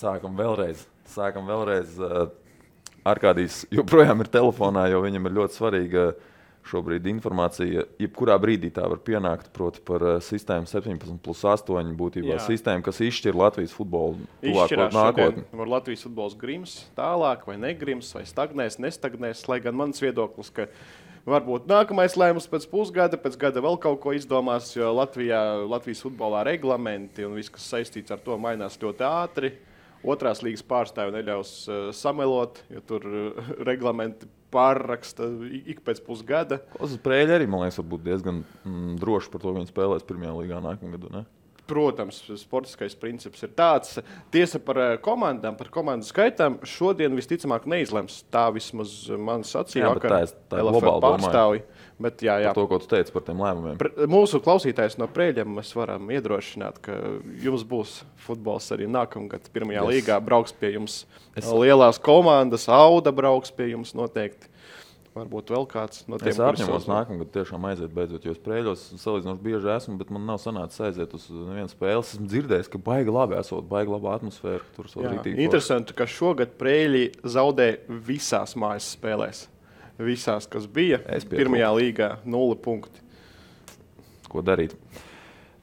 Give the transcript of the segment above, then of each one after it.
Sākam vēlreiz. Arkādijs joprojām ir telefonā, jo viņam ir ļoti svarīga šobrīd informācija. Jebkurā brīdī tā var pienākt, proti par sistēmu 17+8 būtībā sistēmu, kas izšķir Latvijas futbolu tuvāko nākotni. Var Latvijas futbols grims tālāk vai negrims, vai stagnēs, nestagnēs, lai gan mans viedoklis, ka varbūt nākamais lēmums pēc pusgada, pēc gada vēl kaut ko izdomās, jo Latvijas futbolā reglamenti un viss, kas saistīts ar to, mainās ļoti ātri. Otrās līgas pārstāvi neļaus samelot, jo tur reglamenti pārraksta ik pēc pusgada. Uz Prēļa arī, man liekas, var būt diezgan droši par to, ka viņi spēlēs pirmajā līgā nākamā gadu, ne? Protams, sportiskais princips ir tāds. Tiesa par komandām, par komandu skaitām šodien visticamāk neizlems. Tā vismaz man sacīja, ka LFF pārstāvi. Bet, jā. Par to, ko tu teici par tiem lēmumiem. Mūsu klausītājs no Prēļiem mēs varam iedrošināt, ka jums būs futbols arī nākamgad pirmajā līgā. Brauks pie jums lielās komandas, Auda brauks pie jums noteikti. Varbūt vēl kāds no tiem, es apņemos nākamgad tiešām aiziet beidzot, jo es Prēļos salīdzinoši bieži esmu, bet man nav sanācis aiziet uz nevienu spēli. Esmu dzirdējis, ka baigi labi esot, baigi laba atmosfēra. Tur interesanti, ka šogad Prēļi zaudē visās mājas spēlēs. Visās, kas bija pirmajā līgā, 0 punkti. Ko darīt?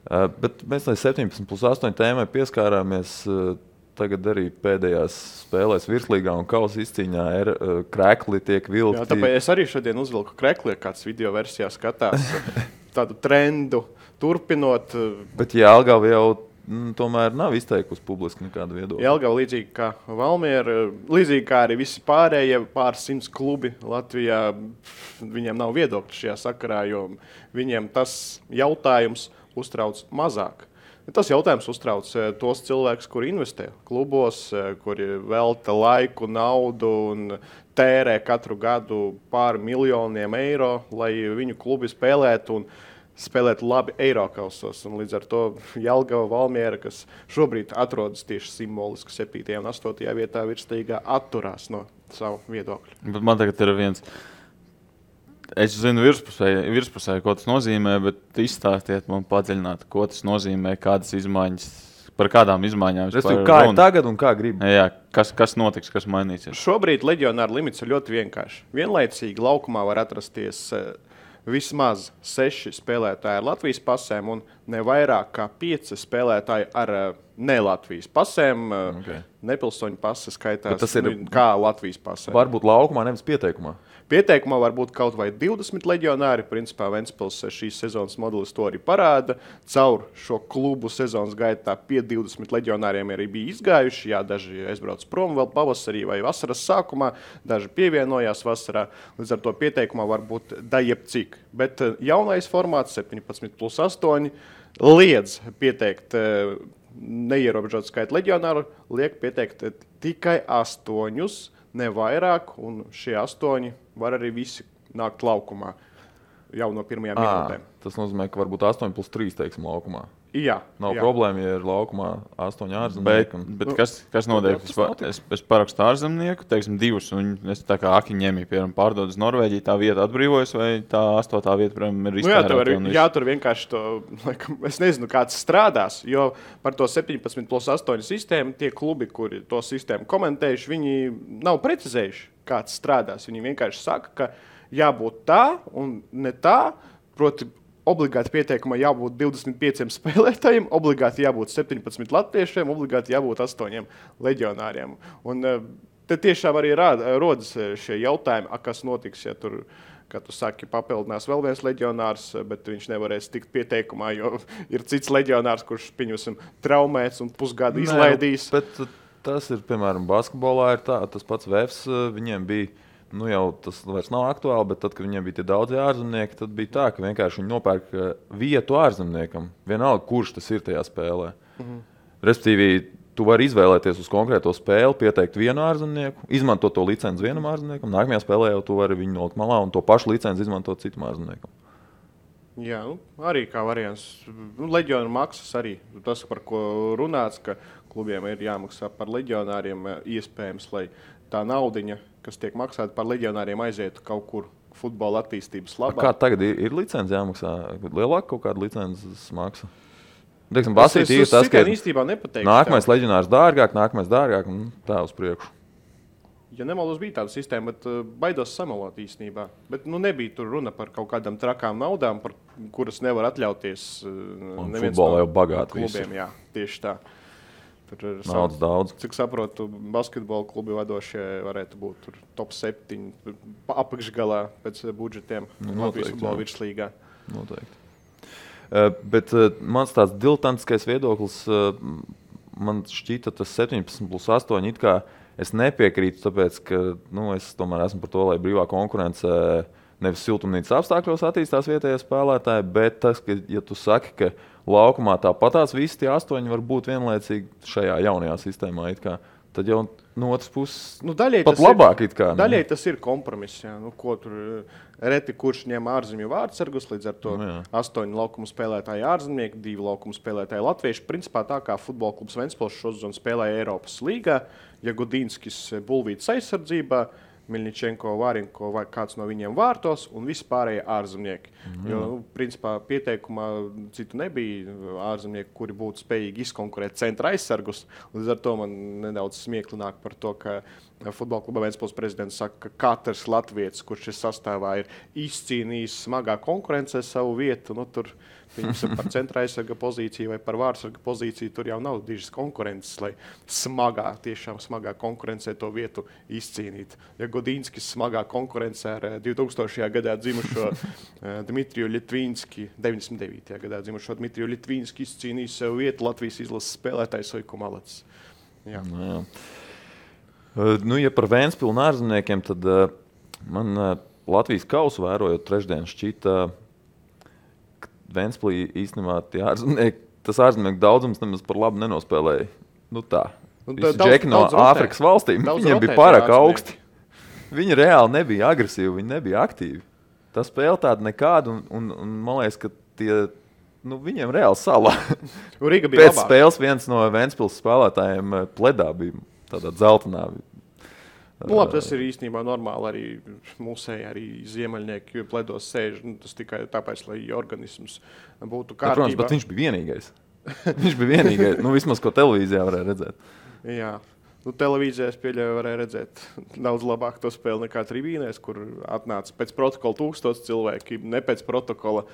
Bet mēs lai 17+8 tēmai pieskārāmies. Tagad arī pēdējās spēlēs virslīgā un kausa izcīņā krekli tiek vilkti. Jā, tāpēc es arī šodien uzvilku krekli, kāds video versijā skatās tādu trendu turpinot. Bet Jelgava jau tomēr nav izteikusi publiski nekādu viedokli. Jelgava līdzīgi kā Valmiera, līdzīgi kā arī visi pārējie pāris 100 klubi Latvijā, viņiem nav viedokļi šajā sakarā, jo viņiem tas jautājums uztrauc mazāk. Tas jautājums uztrauc tos cilvēkus, kuri investē klubos, kuri velta laiku, naudu un tērē katru gadu pāri miljoniem eiro, lai viņu klubi spēlētu un spēlētu labi Eirokausos. Un līdz ar to Jelgava, Valmiera, kas šobrīd atrodas tieši simboliski 7. un 8. vietā virslīgā, atturās no savu viedokļu. Bet man tagad ir viens... Es zinu virspusē, ko tas nozīmē, bet izstāstiet man padziļināt, ko tas nozīmē, kādas izmaiņas, par kādām izmaiņām. Kā ir tagad un kā grib? Jā, kas notiks, kas mainīsies? Šobrīd leģionāra limits ir ļoti vienkārši. Vienlaicīgi laukumā var atrasties vismaz 6 spēlētāji ar Latvijas pasēm un ne vairāk kā 5 spēlētāji ar ne Latvijas pasēm. Nepilsoņu pase skaitās kā Latvijas pasē. Varbūt laukumā, nevis pieteikumā. Pieteikumā var būt kaut vai 20 leģionāri. Principā Ventspils šīs sezonas modelis to arī parāda. Caur šo klubu sezonas gaitā pie 20 leģionāriem arī bija izgājuši. Jā, daži aizbrauc prom vēl pavasarī vai vasaras sākumā, daži pievienojās vasarā. Līdz ar to pieteikumā var būt jebcik. Bet jaunais formāts 17+8 liedz pieteikt neierobežot skaitu leģionāru, liek pieteikt tikai 8, ne vairāk, un šie 8 var arī visi nākt laukumā jau no pirmajām minūtēm. Tas nozīmē, ka varbūt 8+3, teiksim, laukumā. Jā. Nav problēma, ja ir laukumā 8 ārzemnieki. Bet kas notiek? Es parakstu ārzemnieku, teiksim, 2, un es tā kā Akiņemī, piemēram, pārdod uz Norvēģiju, tā vieta atbrīvojas, vai tā 8. vieta, piemēram, ir iztērēta? Jā, tur vienkārši to, es nezinu, kāds strādās, jo par to 17+8 sistēmu tie klubi, kuri to sistēmu komentējuši, viņi nav precizējuši, kāds strādās. Viņi vienkārši saka, ka jābūt tā un ne tā, proti, obligāti pieteikumā jābūt 25 spēlētājiem, obligāti jābūt 17 latviešiem, obligāti jābūt 8 leģionāriem. Un te tiešām arī rodas šie jautājumi, kas notiks, ja tur, kā tu saki, papildinās vēl viens leģionārs, bet viņš nevarēs tikt pieteikumā, jo ir cits leģionārs, kurš, pieņemsim, traumēts un pusgadu izlaidīs. Bet tas ir, piemēram, basketbolā ir tā, tas pats VFS, viņiem bija, jau tas vairs nav aktuāli, bet tad, kad viņiem bija tie daudzi ārzemnieki, tad bija tā, ka vienkārši viņi nopērk vietu ārzemniekam. Vienalga, kurš tas ir tajā spēlē. Respektīvi, tu vari izvēlēties uz konkrēto spēli, pieteikt vienu ārzemnieku, izmantot to licenci vienam ārzemniekam, nākamajā spēlē jau tu vari viņu nolikt malā un to pašu licenci izmantot citam ārzemniekam. Jā, arī kā variants. Leģionu maksas arī. Tas, par ko runāts, ka klubiem ir jāmaksā par leģionāriem iespējams, lai tā naudiņa, kas tiek maksāta par leģionāriem, aizietu kaut kur futbola attīstības labā. Kā tagad ir licenci jāmaksā? Lielāka kaut kāda licences maksa? Teiksim, Basīti ir tas, ka īstenībā nepateikšu. Nākamais leģionārs dārgāk, un tā uz priekšu. Ja nemaldos, bija tāda sistēma, bet baidos samalot īstenībā. Bet nebija tur runa par kaut kādām trakām naudām, par kuras nevar atļauties neviens futbolā jau bagāti klubiem. Jā, tieši tā. Naudas daudz. Cik saprotu, basketbola klubi vadošie varētu būt tur top 7 apakšgalā pēc budžetiem Latvijas futbola virslīgā. Noteikti. Bet mans tāds diletantiskais viedoklis, man šķita tas 17+8 it kā es nepiekrītu, tāpēc, ka es tomēr esmu par to, lai brīvā konkurence nevis siltumnīcas apstākļos attīstās vietējie spēlētāji, bet tas, ka, ja tu saki, ka laukumā tāpatās visi tie 8 var būt vienlaicīgi šajā jaunajā sistēmā, tad jau no otras puses pat labāk. Daļai tas ir kompromiss. Ko tur reti kurš ņem ārzemju vārdsargus, līdz ar to 8 laukumu spēlētāji ārzemnieki, 2 laukumu spēlētāji latvieši. Principā tā kā futbola klubs Ventspils šo sezonu spēlēja Eiropas līgā, Jagudinskis Bulvītas aizsardzībā, Miļņičenko, Vārinko vai kāds no viņiem vārtos un visi pārējie ārzemnieki. Jo, principā, pieteikumā citu nebija ārzemnieki, kuri būtu spējīgi izkonkurēt centra aizsargus. Līdz ar to man nedaudz smiekli nāk par to, ka futbola kluba Ventspils prezidents saka, ka katrs latvietis, kurš šis sastāvā ir izcīnījis smagā konkurencē savu vietu, tur par centra aizsarga pozīciju vai par vārdsarga pozīciju, tur jau nav dižas konkurences, lai tiešām smagā konkurencē to vietu izcīnīt. Ja Godinskis smagā konkurencē ar 2000. gadā dzimušo Dmitriju Ļitvīnski, 99. gadā dzimušo Dmitriju Ļitvīnski izcīnījis sev vietu Latvijas izlases spēlētājs Oiko Malacis. Jā. Ja par Ventspilu un ārzemniekiem, tad man Latvijas kausu vērojot trešdien šķita, Ventspilī īstenībā tas ārzemnieku daudzums nemaz par labu nenospēlēja. Tā. Visi džeki no Āfrikas valstīm, viņiem bija pārāk augsti. Viņi reāli nebija agresīvi, viņi nebija aktīvi. Tā spēle tāda nekāda, un man liekas, ka viņiem reāli salā. Pēc spēles viens no Ventspils spēlētājiem pledā bija tādā dzeltenā. Labi, tas ir īstenībā normāli arī mūsēji, arī ziemeļnieki pledos sēž. Tas tikai tāpēc, lai organisms būtu kārtībā. Protams, bet viņš bija vienīgais. Vismaz, ko televīzijā varēja redzēt. Jā. Televīzijās pieļauju varēja redzēt daudz labāk to spēli nekā tribīnēs, kur atnāca pēc protokola 1000 cilvēki, ne pēc protokola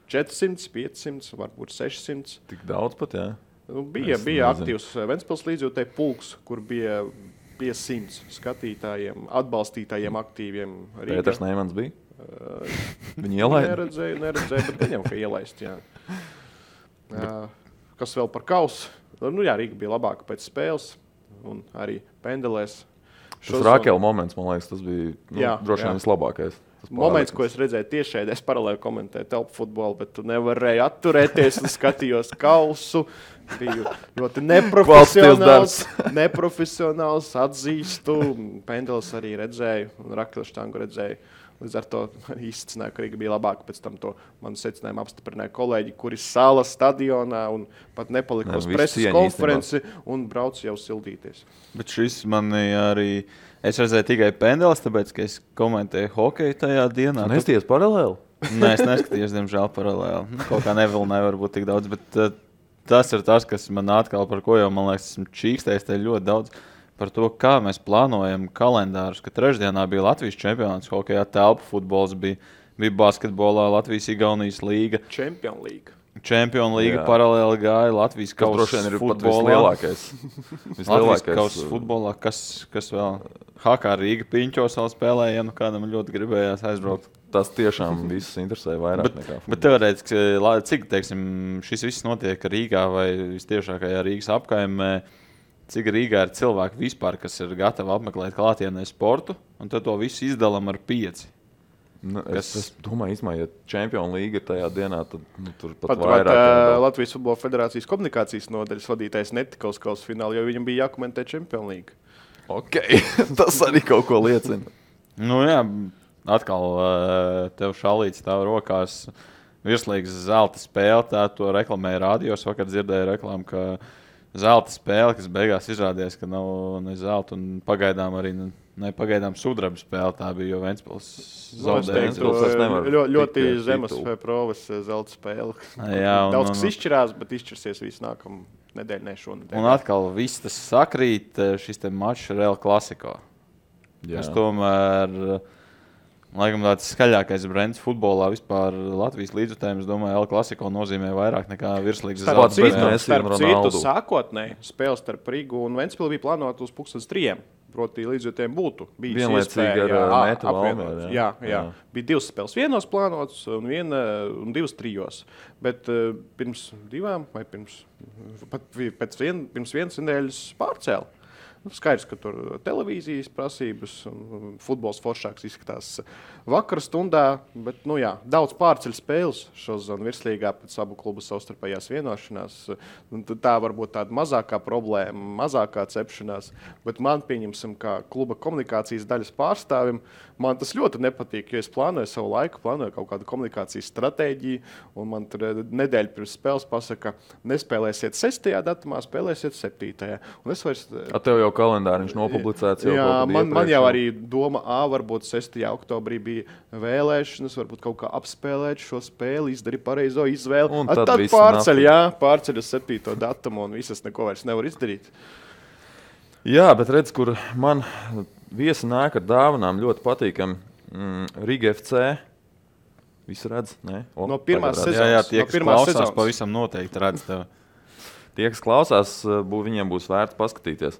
400, 500, varbūt 600. Tik daudz pat, jā. Bija aktīvs Ventspils līdzjūtēji pulks, kur bija 100 skatītājiem, atbalstītājiem, aktīviem. Pēters Neimans bija? Viņi ielaida? Neredzēju, bet viņam, ka ielaist, jā. Kas vēl par kausu? Rīga bija labāka pēc spēles un arī pendelēs. Tas Rakela moments, man liekas, tas bija droši vien vislabākais. Moments, ko es redzēju tiešēdē, es paralēli komentēju telpu futbolu, bet tu nevarēji atturēties un skatījos kausu. Biju ļoti neprofesionāls, atzīstu. Pendelis arī redzēju un Rakela štangu redzēju. Līdz ar to izcināju, ka Rīga bija labāka. Pēc tam to manu secinājumu apstiprināja kolēģi, kuri sala stadionā un pat nepalika uz preses konferenci un brauc jau sildīties. Bet šis man arī... Es redzēju tikai pendelis, tāpēc, ka es komentēju hokeju tajā dienā. Nesties paralēli? Nē, es neskatījos, diemžēl, paralēli. Kaut kā nevilnēja varbūt tik daudz, bet tas ir tas, kas man atkal par ko jau, man liekas, esmu čīkstējis te ļoti daudz par to, kā mēs plānojam kalendārus, ka trešdienā bija Latvijas čempionāts hokejā, telpu futbols bija basketbolā, Latvijas-Igaunijas līga. Čempionu līga paralēli gāja Latvijas kausa futbolā. Latvijas kausa futbolā, kas vēl? HK Rīga Piņķos vēl spēlēja, kādam ļoti gribējās aizbraukt. Tas tiešām visus interesē vairāk nekā futbols. Bet teorētiski, cik, šis viss notiek Rīgā vai vistiešākajā Rīgas apkaimē, cik Rīgā ir cilvēki vispār, kas ir gatavi apmeklēt klātienē sportu, un tad to visu izdalam ar 5. Es domāju, ja Čempionu līga ir tajā dienā, tad tur pat vairāk. Latvijas Futbola Federācijas komunikācijas nodaļas vadītājs netika uz kausa finālu, jo viņam bija jākomentē Čempionu līga. Ok, tas arī kaut ko liecina. Jā, atkal tev šalīts stāv rokās virslīgas zelta spēle, tā to reklamēja rādījos, vakar dzirdēju reklāmu, ka zelta spēle, kas beigās izrādījās, ka nav ne zelta un pagaidām arī pagaidām sudraba spēle. Tā bija, jo Ventspils zaudēja. Ļoti zemes provas zelta spēle. Jā, daudz kas izšķirās, bet izšķirsies visu nākamu nedēļu, ne šonedēļ. Un atkal viss tas sakrīt, šis te mačs Real Klasiko. Es tomēr, laikam tāds skaļākais brands futbolā vispār Latvijas līdzjutējums, domāju, Real Klasiko nozīmē vairāk nekā virslīgas zelta. Starp citu, sākotnēji spēle starp Rigu un Ventspilu bija plānota uz 2:30. Proti, līdzjutējiem būtu bijis vienlaicīgi ar Metu Valmieru. Jā. Bija 2 spēles vienos plānotas un 2 trijos. Bet pirms 2 vai pirms vienas nedēļas pārcēla. Skaidrs, ka tur televīzijas prasības un futbols foršāks izskatās vakara stundā, bet daudz pārceļ spēles šo zonu virslīgā pēc abu klubu savstarpējās vienošanās. Tā varbūt tāda mazākā problēma, mazākā cepšanās, bet man pieņemsim, kā kluba komunikācijas daļas pārstāvim, man tas ļoti nepatīk, jo es plānoju savu laiku, plānoju kaut kādu komunikācijas stratēģiju, un man tur nedēļa pirms spēles pasaka, nespēlēsiet 6. datumā, spēlēsiet 7. Un es vairs... Tev jau kalendāriņš nopublicēts. Man jau arī doma, varbūt 6. oktobrī bija vēlēšanas, varbūt kaut kā apspēlēt šo spēli, izdarīt pareizo izvēli. Un tad pārceļ uz 7. datumu un visas neko vairs nevar izdarīt. Jā, bet redz, kur man viesi nāk ar dāvanām ļoti patīkam. Riga FC. Visu redz? No pirmās sezonas. Jā, tie, kas klausās, pavisam noteikti redz tev. Tie, kas klausās, viņiem būs vērts paskatīties.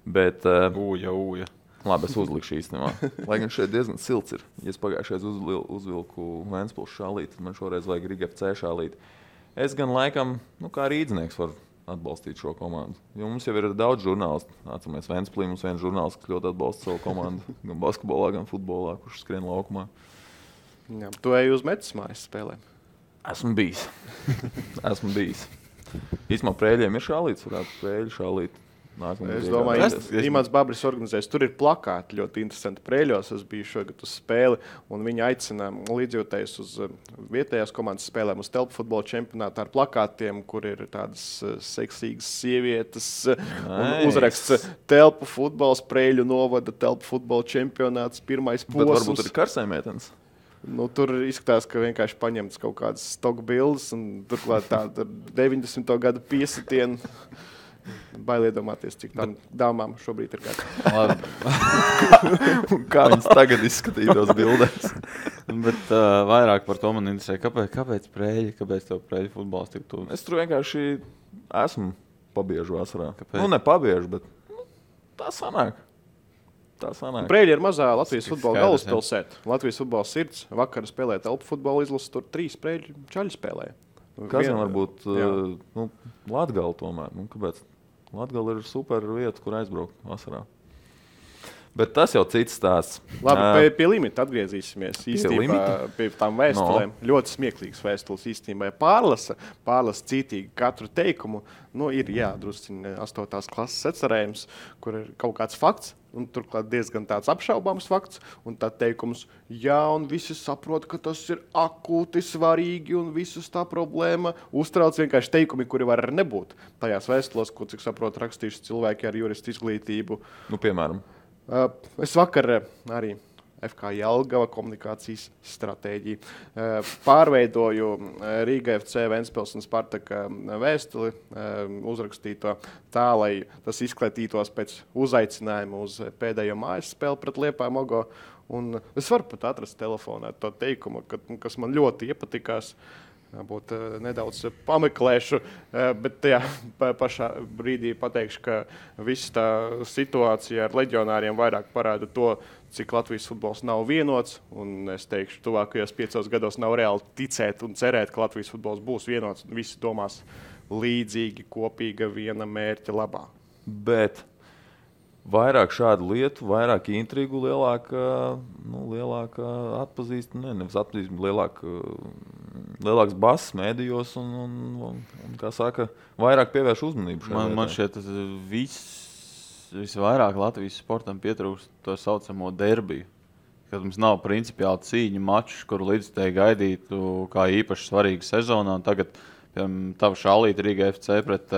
Bet, ūja. Labi, es uzlikšu īstenībā. Lai gan šeit diezgan silts ir. Ja es pagājušais uzvilku Ventspils šālīti, tad man šoreiz vajag Riga FC šālīti. Es gan laikam, kā rīdznieks varu atbalstīt šo komandu. Jo mums jau ir daudz žurnālistu. Atceramies, Ventspilī mums viens žurnālists, kas ļoti atbalsta savu komandu. Gan basketbolā, gan futbolā, kurš skrien laukumā. Jā, tu ej uz Metas mājas spēlēm? Esmu bijis. Īstumā Prēļiem ir šālīts, varētu Prēļu šālīt. Es domāju, Imants Babris organizēs. Tur ir plakāti ļoti interesanti Prēļos. Es biju šogad uz spēli, un viņi aicina līdzjūtējus uz vietējās komandas spēlēm, uz telpu futbola čempionātu ar plakātiem, kur ir tādas seksīgas sievietes. Un uzraksts telpu futbols, Prēļu novada telpu futbola čempionāts, pirmais posms. Bet varbūt ir karsējmeitenes. Tur izskatās, ka vienkārši paņemts kaut kādas stock bildes, un turklāt tāda 90. gadu piesitienu. Bail iedomāties, cik tām dāmām šobrīd ir gadi. Kā viņas tagad izskatītos bildēs. Bet vairāk par to man interesē. Kāpēc Prēļi? Kāpēc tev Prēļu futbols tik tuvu? Es tur vienkārši esmu pabiežu vasarā. Kāpēc? Ne pabiežu, bet tā sanāk. Prēļi ir mazā Latvijas futbola galvaspilsēta. Latvijas futbola sirds. Vakar spēlēja telpu futbola izlases, tur 3 Prēļu čaļi spēlēja. Kas gan varbūt Latgala tomēr? Kāpēc? Latgala ir super vieta, kur aizbraukt vasarā. Bet tas jau cits stāsts. Labi, pie limita atgriezīsimies. Īstenībā pie tām vēstulēm. Ļoti smieklīgas vēstules īstenībā. Pārlasa cītīgi katru teikumu. Ir drusciņ 8. klases atcerējums, kur ir kaut kāds fakts, un turklāt diezgan tāds apšaubāms fakts, un tā teikums, un visi saprot, ka tas ir akūti svarīgi, un visus tā problēma uztrauc vienkārši teikumi, kuri var nebūt. Tajās vēstulos, ko, cik saprot, rakstījuši cilvēki ar juristu izglītību. Piemēram. Es vakar arī FK Jelgava komunikācijas stratēģiju pārveidoju Riga FC, Ventspils un Spartaka vēstuli, uzrakstīto tā, lai tas izklatītos pēc uzaicinājuma uz pēdējo mājas spēli pret Liepāju Mogo. Un es varu pat atrast telefonā to teikumu, kas man ļoti iepatikās. Būt nedaudz pameklēšu, bet tajā pašā brīdī pateikšu, ka visa tā situācija ar leģionāriem vairāk parāda to, cik Latvijas futbols nav vienots, un es teikšu, tuvākajos 5 gados nav reāli ticēt un cerēt, ka Latvijas futbols būs vienots, un visi domās līdzīgi, kopīga viena mērķa labā. Bet vairāk šādu lietu, vairāk intrigu, lielāka nevis atpazīstamība, lielāks bass mēdījos un kā saka, vairāk pievērš uzmanību. Man šķiet, visvairāk Latvijas sportam pietrūkst to saucamo derbiju, kad mums nav principiāli cīņu mačus, kuru līdzstēji gaidītu kā īpaši svarīgu sezonā. Tagad, piemēram, tava šālīta Riga FC pret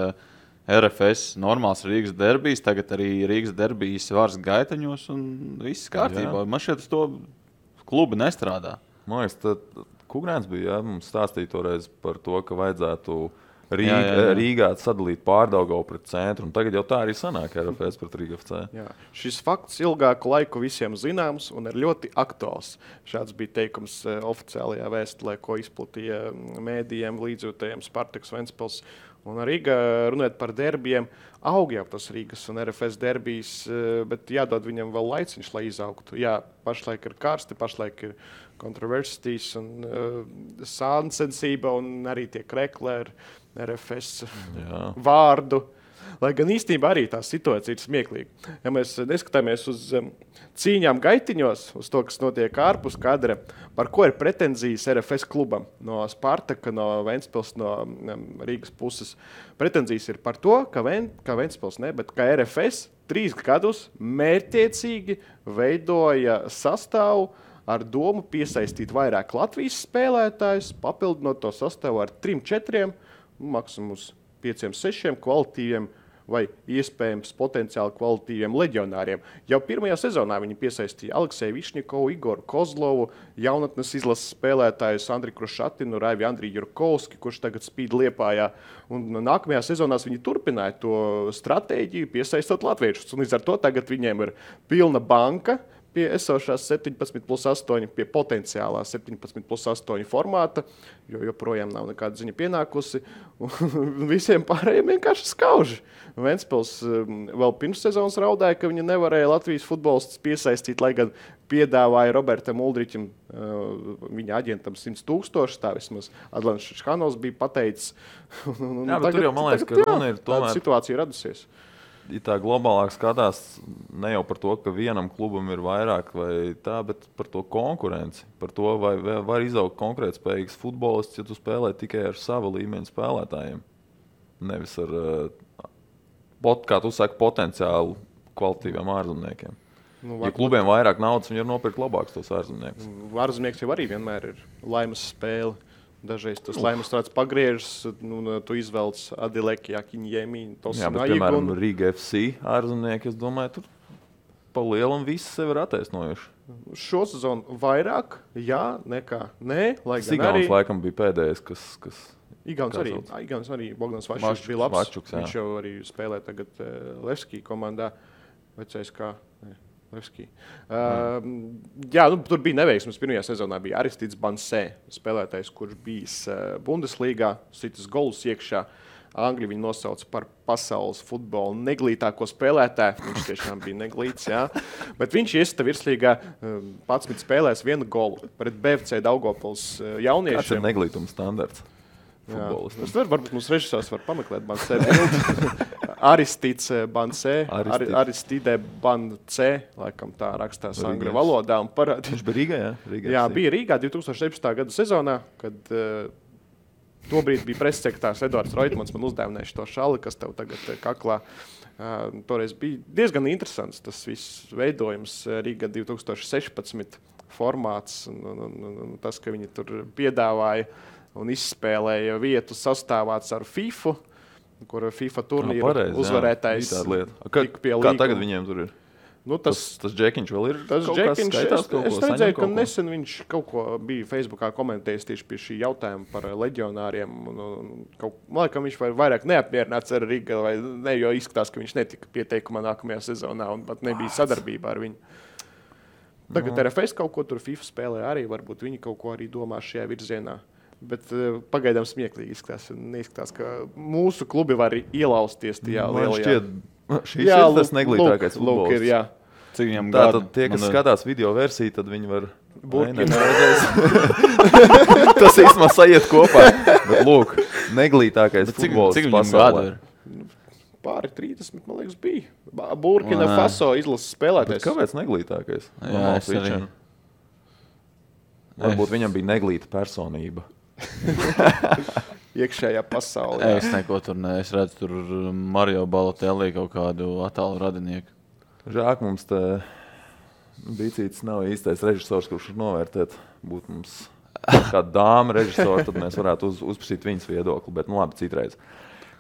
RFS normāls Rīgas derbijs, tagad arī Rīgas derbijs vārds gaitaņos un viss kārtībā. Man šeit uz to klubi nestrādā. Man liekas, tad Kugrēns bija, mums stāstīja toreiz par to, ka vajadzētu Rīgā sadalīt Pārdaugavu pret centru, un tagad jau tā arī sanāk RFS pret Rīga FC. Jā. Šis fakts ilgāku laiku visiem zināms un ir ļoti aktuāls. Šāds bija teikums oficiālajā vēstulē, ko izplatīja mēdījiem, līdzjūtējiem Spartaks Ventspils. Un Rīga, runājot par derbijiem, aug jau tas Rīgas un RFS derbijs, bet jādod viņam vēl laiciņš, lai izaugtu. Jā, pašlaik ir karsti, pašlaik ir kontroversijas un sāncensība un arī tie krekli ar RFS vārdu. Lai gan īstenībā arī tā situācija ir smieklīga. Ja mēs neskatāmies uz cīņām gaitiņos, uz to, kas notiek ārpus kadra, par ko ir pretenzijas RFS klubam no Spartaka, no Ventspils, no Rīgas puses. Pretenzijas ir par to, ka Ventspils ne, bet ka RFS 3 gadus mērķtiecīgi veidoja sastāvu ar domu piesaistīt vairāk Latvijas spēlētājus, papildinot to sastāvu ar 3-4, maksimums 5-6 kvalitīviem vai iespējams potenciāli kvalitīviem leģionāriem. Jau pirmajā sezonā viņi piesaistīja Alekseju Višnikovu, Igoru Kozlovu, jaunatnes izlases spēlētājus Andri Krušatinu, Raivi Andriju Jurkovski, kurš tagad spīd Liepājā. Un nākamajā sezonās viņi turpināja to stratēģiju, piesaistot latviešus. Un līdz ar to tagad viņiem ir pilna banka pie esošās 17+8, pie potenciālā 17+8 formāta, jo joprojām nav nekāda ziņa pienākusi. Un visiem pārējiem vienkārši skauži. Ventspils vēl pirms sezonas raudāja, ka viņi nevarēja Latvijas futbolistus piesaistīt, lai gan piedāvāja Robertam Uldriķim, viņa aģentam 100,000, tā vismaz Adlants Šhanovs bija pateicis. Jā, bet tur jau, man liekas, ka runa ir tomēr... Tāda situācija radusies. Ja tā globālāk skatās ne jau par to, ka vienam klubam ir vairāk vai tā, bet par to konkurenci. Par to, vai var izaugt konkrētspējīgs futbolists, ja tu spēlē tikai ar sava līmeņa spēlētājiem. Nevis ar, kā tu saki, potenciālu kvalitīviem ārzemniekiem. Ja klubiem vairāk naudas, viņi var nopirkt labākus tos ārzemniekus. Ārzemnieks jau arī vienmēr ir laimes spēle. Dažreiz tas laimes tāds pagriežas, tu izvelc Adileki, Akiņjēmī, Jā, bet, piemēram, Rīga FC ārzemnieki, es domāju, tur pa lielam visi sevi ir attaisnojuši. Šo sezonu vairāk, jā, nekā nē, lai gan Sigauns arī... laikam bija pēdējais, kas Igauns arī, Bogdans Vaščuks bija labs. Vaščuks, viņš jau arī spēlē tagad Levski komandā, vecais kā... Levski. Jā, tur bija neveiksmes. Pirmajā sezonā bija Aristids Bansē, spēlētājs, kurš bijis Bundeslīgā, sitas golus iekšā. Angļi viņu nosauca par pasaules futbola neglītāko spēlētāju. Viņš tiešām bija neglīts, jā. Bet viņš iesita virslīgā 11 spēlēs 1 golu pret BFC Daugavpils jauniešiem. Kāds ir neglītuma standarts? Varbūt mums režisors var pameklēt Bansē bildi. Aristids Bansē, Aristide Bansē, laikam tā rakstās angļu valodā. Viņš bija Rīgā, jā? Jā, bija Rīgā 2017. gada sezonā, kad tobrīd bija pressekretārs Eduards Roitmans, man uzdēvinājuši to šali, kas tev tagad kaklā. Toreiz bija diezgan interesants tas viss veidojums Rīgā 2016 formāts un tas, ka viņi tur piedāvāja un izspēlēja vietu sastāvāts ar FIFA, kur FIFA turnīra uzvarētājs tika pie līguma. Kā tagad viņiem tur ir? Tas Džekiņš vēl ir tas kaut kas skaitās? Es redzēju, ka nesen viņš kaut ko bija Facebookā komentējis tieši pie šī jautājuma par leģionāriem. Man liekas, viņš vairāk neapmierināts ar Riga, vai ne, jo izskatās, ka viņš netika pieteikumā nākamajā sezonā un pat nebija sadarbībā ar viņu. Tagad RFS kaut ko tur FIFA spēlē arī, varbūt viņi kaut ko arī domā šajā virzienā. Bet pagaidām smieklīgi izskatās. Neizskatās, ka mūsu klubi var ielausties tajā lielajā. Šis ir tas neglītākais futbols. Cik viņam gadu? Tātad tie, kas skatās video versiju, tad viņi var... Tas īstenībā sajiet kopā. Bet lūk, neglītākais futbols pasaulē. Cik viņam gadu ir? Pāri 30, man liekas, bija. Burkina Faso izlases spēlētājs. Bet kāpēc neglītākais? Jā, es arī. Varbūt viņam bija neglīta personība. Iekšējā pasaulē. Es neko tur ne. Es redzu tur Mario Balotelli kaut kādu attālu radinieku. Žāk mums te Bicītis nav īstais režisors, kurš novērtēt. Būtu mums kāda dāma režisora, tad mēs varētu uzprasīt viņas viedokli. Bet labi, citreiz.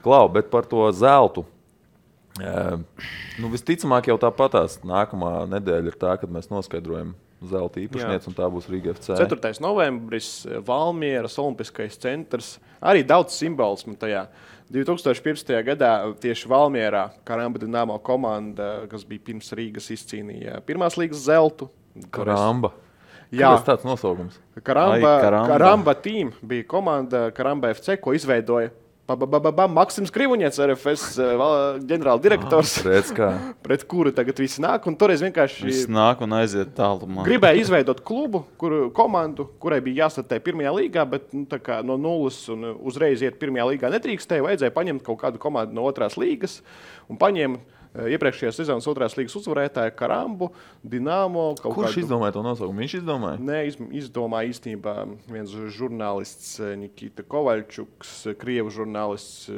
Klau, bet par to zeltu. Visticamāk jau tāpatās nākamā nedēļa ir tā, kad mēs noskaidrojam zelta īpašnieci, un tā būs Rīga FC. 4. novembris, Valmieras Olimpiskais centrs. Arī daudz simbolismu tajā. 2015. gadā tieši Valmierā Karamba Dinamo komanda, kas bija pirms Rīgas, izcīnīja pirmās līgas zeltu. Karamba. Jā, tas tāds nosaukums. Karamba team bija komanda Karamba FC, ko izveidoja Maksims Krivuņets, RFS ģenerāldirektors, pret kuru tagad visi nāk. Un toreiz vienkārši visi nāk un aiziet tālumā. Gribēja izveidot klubu, komandu, kurai bija jāstartē pirmajā līgā, bet no nulles un uzreiz iet pirmajā līgā netrīkstēja. Vajadzēja paņemt kaut kādu komandu no 2. līgas un paņēma iepriekšējās sezonas 2. līgas uzvarētāju Karambu, Dinamo. Kurš izdomāja to nosaukumu? Viņš izdomāja? Nē, izdomāja īstenībā viens žurnālists Nikita Kovaļčuks, krievu žurnālists,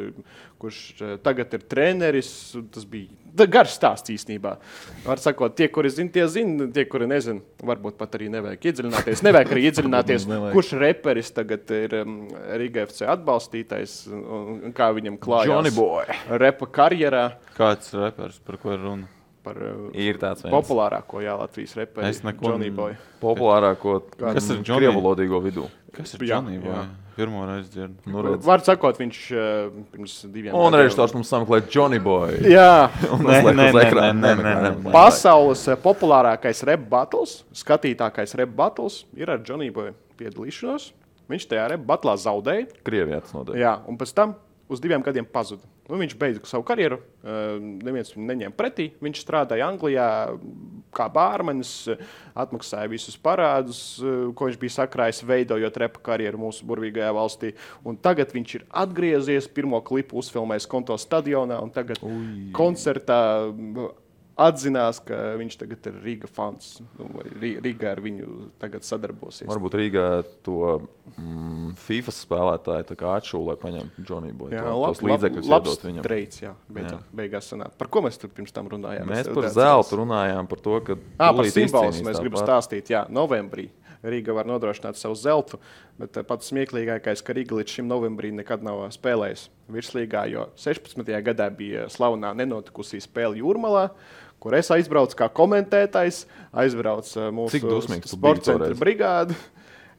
kurš tagad ir treneris. Tas bija garš stāsts īstenībā. Var sakot, tie, kuri zina, tie zina, tie, kuri nezina, varbūt pat arī nevajag iedziļināties. Nevajag arī iedziļināties, kurš reperis tagad ir Riga FC atbalstītais un kā viņam klājās Johnny Boy repa karjerā. Kāds reperis, par ko ir runa? Ir tāds viens. Populārāko, Latvijas reperi, Johnny Boy. Populārāko, kas ir Johnny? Krievalodīgo vidū. Kas ir Johnny Boy? Pirmo reizi dzirdu. Var sakot, viņš pirms 2 gadiem. Un režisors mums sameklē Johnny Boy. Jā. Nē. Pasaules populārākais rap battles, skatītākais rap battles ir ar Johnny Boy piedalīšanos. Viņš tajā rap battlā zaudēja. Krievijā tas notiek. Jā, un pēc tam uz 2 gadiem pazuda. Viņš beidza savu karjeru, neviens viņu neņēma pretī. Viņš strādāja Anglijā kā bārmenis, atmaksāja visus parādus, ko viņš bija sakrājis, veidojot repa karjeru mūsu burvīgajā valstī. Un tagad viņš ir atgriezies, pirmo klipu uzfilmējis Konto stadionā, un tagad koncertā atzinās, ka viņš tagad ir Riga fans. Riga ar viņu tagad sadarbosies. Varbūt Rīgā to FIFA spēlētāju tā kā atšūlē paņemt Johnny Boy. Jā, tos līdzekļus iedot viņam. Treids, jā. Beigās sanāk. Par ko mēs tur pirms tam runājām? Mēs par zeltu runājām, par to, ka par simbolismu mēs gribam stāstīt. Jā, novembrī Rīga var nodrošināt savu zeltu, bet pats smieklīgākais, ka Rīga līdz šim novembrī nekad nav spēlējusi virslīgā, jo 16. gadā bija slavenā nenotikusī spēle Jūrmalā, kur es aizbraucu kā komentētājs, aizbraucu mūsu sporta centra brigādi.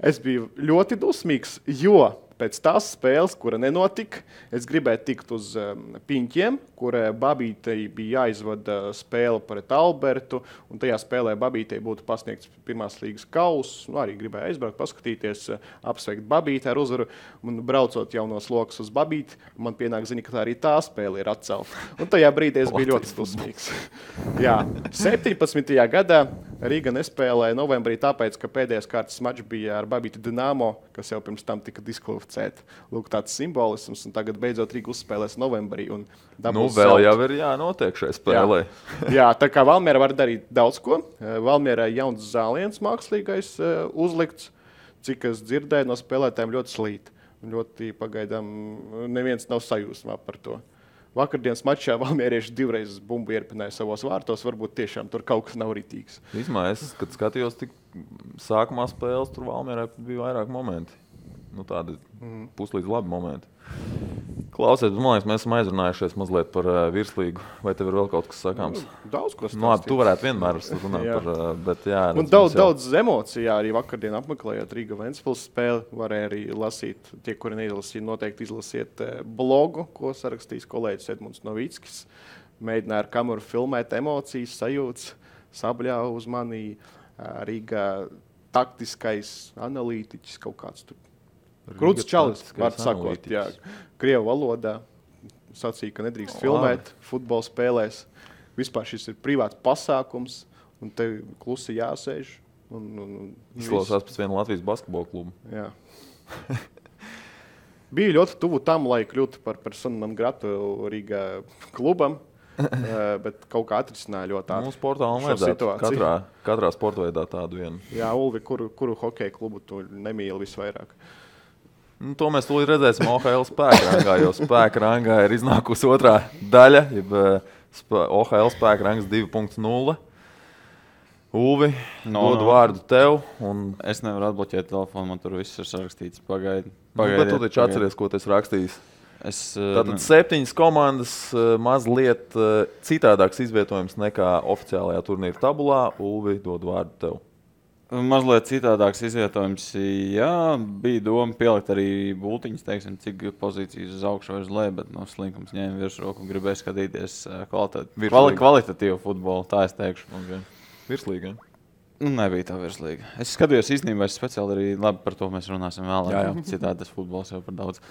Es biju ļoti dusmīgs, jo pēc tās spēles, kura nenotika, es gribēju tikt uz Piņķiem, kur Babītei bija jāizvada spēle pret Albertu, un tajā spēlē Babītei būtu pasniegts pirmās līgas kauss. Arī gribēju aizbraukt, paskatīties, apsveikt Babīti ar uzvaru, un braucot jaunos lokus uz Babīti, man pienāk ziņa, ka arī tā spēle ir atcelta. Un tajā brīdī es biju ļoti dusmīgs. Jā, 17. gadā Rīga nespēlēja novembrī tāpēc, ka pēdējais kārtas mačs bija ar Babīti Dinamo, kas jau pirms tam tika diskvalificēta. Lūk, tāds simbolisms, un tagad beidzot Rīga uzspēlēs novembrī. Un vēl jau ir jānotiek šai spēlē. Jā, tā kā Valmiera var darīt daudz ko. Valmierai jauns zāliens mākslīgais uzlikts, cik es dzirdēju no spēlētājiem ļoti slīt. Ļoti pagaidām neviens nav sajūsmā par to. Vakardienas mačā valmierieši 2 reizes bumbu ierpināja savos vārtos. Varbūt tiešām tur kaut kas nav ritīgs. Vismaz es, kad skatījos tik sākumā spēles, tur Valmierai bija vairāk momenti. Tādi puslīdz labi momenti. Klausies, man liekas, mēs esam aizrunājušies mazliet par virslīgu. Vai tev ir vēl kaut kas sakāms? Daudz ko stāstīt. Labi, tu varētu vienmēr runāt par, bet jā. Un daudz emociju arī vakardien apmeklējot Riga Ventspils spēli. Varēja arī lasīt, tie, kuri neizlasīja, noteikti izlasiet blogu, ko sarakstījis kolēģis Edmunds Novickis. Mēģināja ar kameru filmēt emocijas, sajūtas, sabļāva uz mani. Riga taktiskais analītiķis kaut kāds tur. Krūts čalis, var sakot, jā, krievu valodā sacīja, ka nedrīkst filmēt futbola spēlēs. Vispār šis ir privāts pasākums, un tev klusi jāsēž. Izklausās pēc viena Latvijas basketbola klubu. Jā. Bija ļoti tuvu tam, lai kļūtu par personu non gratu Rīgā klubam, bet kaut kā atrisināja ļoti ātri. Mūsu portālam vajadzētu katrā sportveidā tādu vienu. Jā, Ulvi, kuru hokeja klubu tu nemīli visvairāk? To mēs tūlīt redzēsim OHL spēka rangā, jo spēka rangā ir iznākusi otrā daļa, jeb OHL spēka rangs 2.0. Ulvi, dodu vārdu tev. Es nevaru atbloķēt telefonu, man tur viss ir sarakstīts. Pagaidi. Bet tu taču atceries, ko tu esi rakstījis. Tātad 7 komandas mazliet citādāks izvietojums nekā oficiālajā turnīra tabulā. Ulvi, dod vārdu tev. Mazliet citādāks izvietojums, jā, bija doma pielikt arī bultiņas, teiksim, cik pozīcijas uz augšu vai uz leju, bet Slinkums ņēma virsroku un gribēja skatīties kvalitatīvu futbolu, tā es teikšu. Okay. Virslīga, ja? Nebija tā virslīga. Es skatījos īstenībā, es speciāli arī labi par to mēs runāsim vēlāk. Jā. Citādi tas futbols jau par daudz.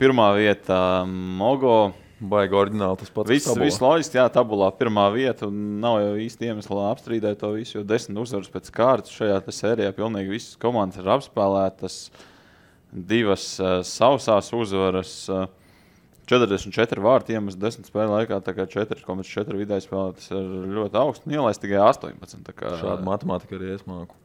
Pirmā vieta Mogo. Baigi oriģināli tas pats. Viss loģiski, jā, tabulā pirmā vieta. Un nav jau īsti iemesla apstrīdēt to visu, jo 10 uzvaras pēc kārtas šajā sērijā pilnīgi visas komandas ir apspēlētas. 2 sausās uzvaras. 44 vārti iemest 10 spēļu laikā, tā kā 4,4 vidēji spēlē, tas ir ļoti augsts. Ielaist tikai 18. Šāda matemātika arī es māku.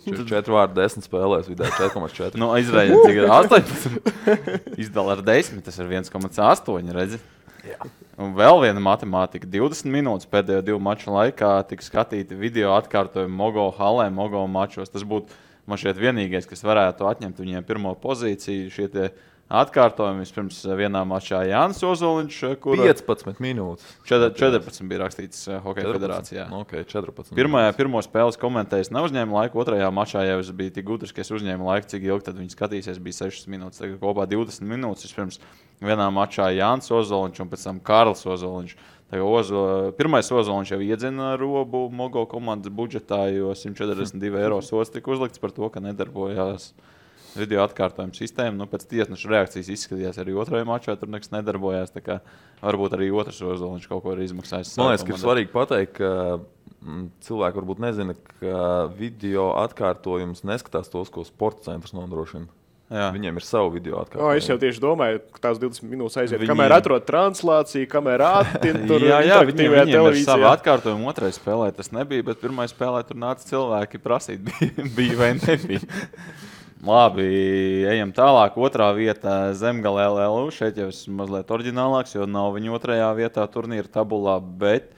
4 vārti 10 spēlēs vidēji 4,4. Izrēģiet, cik ir 18. Izdala ar 10, tas ir 1,8, redzi? Jā. Un vēl viena matemātika. 20 minūtes pēdējo 2 maču laikā tika skatīti video atkārtojumi Mogo halē, Mogo mačos. Tas būtu man šķiet vienīgais, kas varētu atņemt viņiem pirmo pozīciju. Šie tie atkārtojumi vispirms vienā mačā Jānis Ozoliņš, kur 15 minūtes. 14 bija rakstīts Hokeja federācijā. Okay, 14. Pirmo spēles komentējis neuzņēma laiku, otrajā mačā jau es biju tik gudrs, ka es uzņēmu laiku, cik ilgi tad viņi skatīsies, bija 6 minūtes. Tagad kopā 20 minūtes vispirms vienā mačā Jānis Ozoliņš un pēc tam Karls Ozoliņš. Pirmais Ozoliņš jau iedzina robu Mogo komandas budžetā, jo 142 eiro sots tika uzlikts par to, ka nedarbojās video atkārtojuma sistēma. Pēc tiesneša reakcijas izskatījās arī otrajā mačā, tur nekas nedarbojās. Tā kā varbūt arī otrs Ozoliņš kaut ko ir izmaksājis. Man liekas, ka ir svarīgi pateikt, ka cilvēki varbūt nezina, ka video atkārtojums neskatās tos, ko sporta centrs nodrošina. Jā. Viņiem ir savu video atkārtojumu. Es jau tieši domāju, ka tās 20 minūtes aiziet. Kamēr atrod translāciju, kamēr attin tur interaktīvajā televīzijā. Ir savu atkārtojumu otrai spēlē tas nebija, bet pirmai spēlē tur nāca cilvēki prasīt, bija vai nebija. Labi, ejam tālāk. Otrā vieta Zemgale LLU. Šeit jau esmu mazliet oriģinālāks, jo nav viņa otrajā vietā turnīra tabulā, bet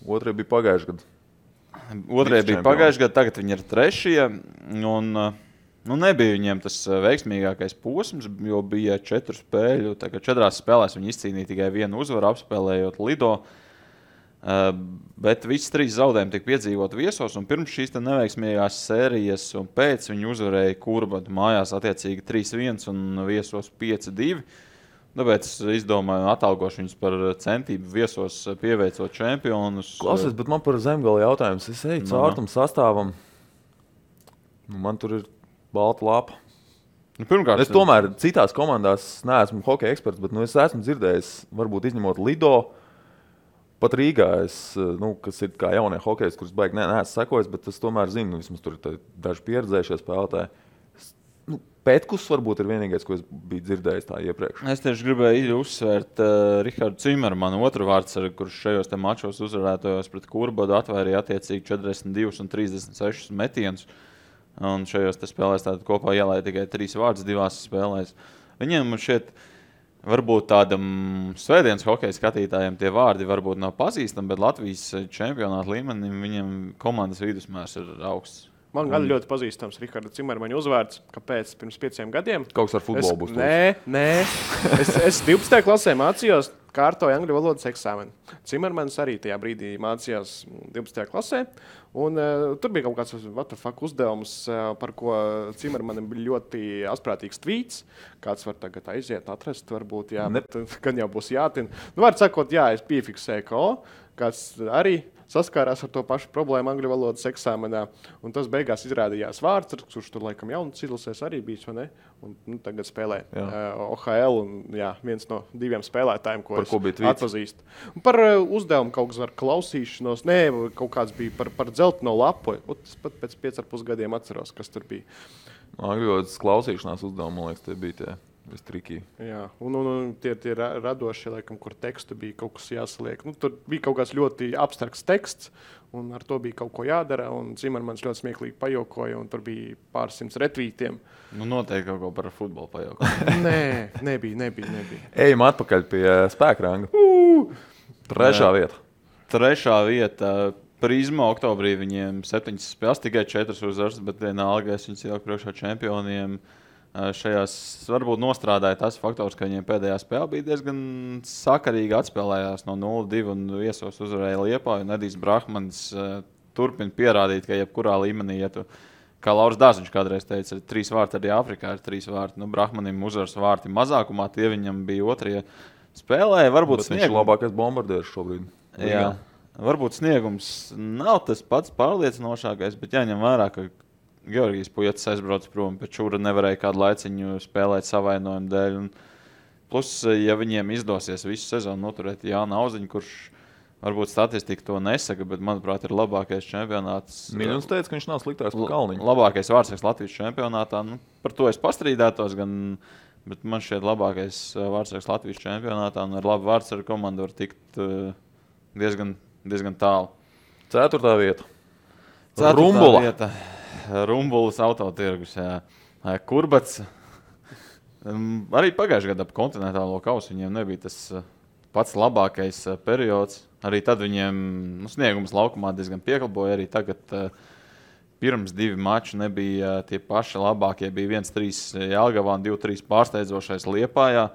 otrajā bija pagājušajā gadā. Otrajā bija pagājušajā gadā, tagad viņi ir trešie. Un nebija viņiem tas veiksmīgākais posms, jo bija 4 spēļu. Tagad 4 spēlēs viņi izcīnīja tikai 1 uzvaru, apspēlējot Lido. Bet visi 3 zaudējumi tika piedzīvot viesos, un pirms šīs neveiksmīgās sērijas un pēc viņi uzvarēja Kurbadu mājās attiecīgi 3-1 un viesos 5-2. Tāpēc izdomāju atalgošu viņus par centību viesos pieveicot čempionus. Klausies, bet man par Zemgali jautājums. Es eju caur tam sastāvam. Man tur ir balta lapa. Pirmkārt, es tomēr citās komandās neesmu hokeja eksperts, bet es esmu dzirdējis, varbūt izņemot Lido, pat Rīgā, kas ir kā jaunie hokejs, kurus baigi neesmu sekojis, bet es tomēr zinu, vismaz tur ir daži pieredzējušie spēlētāji. Pētkus varbūt ir vienīgais, ko es biju dzirdējis tā iepriekš. Es tieši gribēju uzsvērt Rihardu Cimermanu, otru vārdsargu, kurš šajos mačos uzvarētojos pret Kurbadu atvairīja attiecīgi 42 un 36 metienus. Un šajos spēlēs kopā ielēja tikai 3 vārdus 2 spēlēs. Viņiem šeit varbūt tādam svētdienas hokeja skatītājiem tie vārdi varbūt nav pazīstami, bet Latvijas čempionāta līmenim viņiem komandas vidusmērs ir augsts. Man gan ļoti pazīstams Riharda Cimermaņa uzvārds. Kāpēc? Pirms 5 gadiem. Kaut kas ar futbolu būs. Nē. Es 12. klasē mācījos, kārtoju angļu valodas eksāmenu. Cimermans arī tajā brīdī mācījās 12. klasē. Un tur bija kaut kāds uzdevums, par ko Cimermanim bija ļoti asprātīgs tvīts. Kāds var tagad aiziet, atrast, varbūt, jā, bet gan jau būs jātina. Var sakot, jā, es piefiksēju, ka kāds arī saskārās ar to pašu problēmu angļu valodas eksāmenā. Un tas beigās izrādījās vārds, kurš tur laikam jaunas izlasēs arī bijis, vai ne? Un tagad spēlē OHL un viens no 2 spēlētājiem, ko atpazīstu. Un par uzdevumu kaut kas ar klausīšanos, kaut kāds bija par dzelteno lapu. Es pat pēc 5,5 gadiem atceros, kas tur bija. Angļu valodas klausīšanās uzdevumu, man liekas, tie bija tie. Jā, un tie radošie, laikam, kur tekstu bija kaut kas jāsaliek. Tur bija kaut kāds ļoti abstrakts teksts, un ar to bija kaut ko jādara. Cimermans ļoti smieklīgi pajokoja, un tur bija pārsimt retvītiem. Noteikti kaut ko par futbolu pajokoja. Nē, nebija. Ejam atpakaļ pie spēkranga. Trešā vieta. Trešā vieta. Prizma oktobrī viņiem 7 spēles, tikai 4 uzvaras, bet vienalga es viņus ieliku priekšā čempioniem. šajās varbūt nostrādāja tas faktors, ka viņiem pēdējā spēle bija diezgan sakarīgi atspēlējās no 0-2 un viesos uzvarēja Liepāju. Edijs Brahmans turpina pierādīt, ka jebkurā līmenī, ja tu, kā Lauris Dārziņš kādreiz teica, ir 3 vārti, arī Afrikā ir 3 vārti. Brahmanim uzvaras vārti mazākumā, tie viņam bija otrie spēlēja. Varbūt viņš ir labākais bombardieris šobrīd. Jā, varbūt sniegums nav tas pats pārliecinošākais, bet jāņem vērā, ka Georgijs Pujetis aizbrauc prom, bet Čūra nevarēja kādu laiciņu spēlēt savainojumu dēļ. Un plus, ja viņiem izdosies visu sezonu noturēt Jānu Auziņu, kurš varbūt statistika to nesaka, bet, manuprāt, ir labākais čempionāts. Miļons teica, ka viņš nav sliktāks par Kalniņu. Labākais vārdsargs Latvijas čempionātā. Par to es pastrīdētos, bet man šķiet labākais vārdsargs Latvijas čempionātā. Un ar labu vārdsargu komandu var tikt diezgan tālu. 4. vieta. Rumbula. Rumbulas autotirgus. Kurbats. Arī pagājušajā gadā ap kontinentālo kausu viņiem nebija tas pats labākais periods. Arī tad viņiem sniegums laukumā diezgan piekalpoja. Arī tagad pirms 2 mači nebija tie paši labākie. Bija 1-3 Jelgavā un 2-3 pārsteidzošais Liepājā.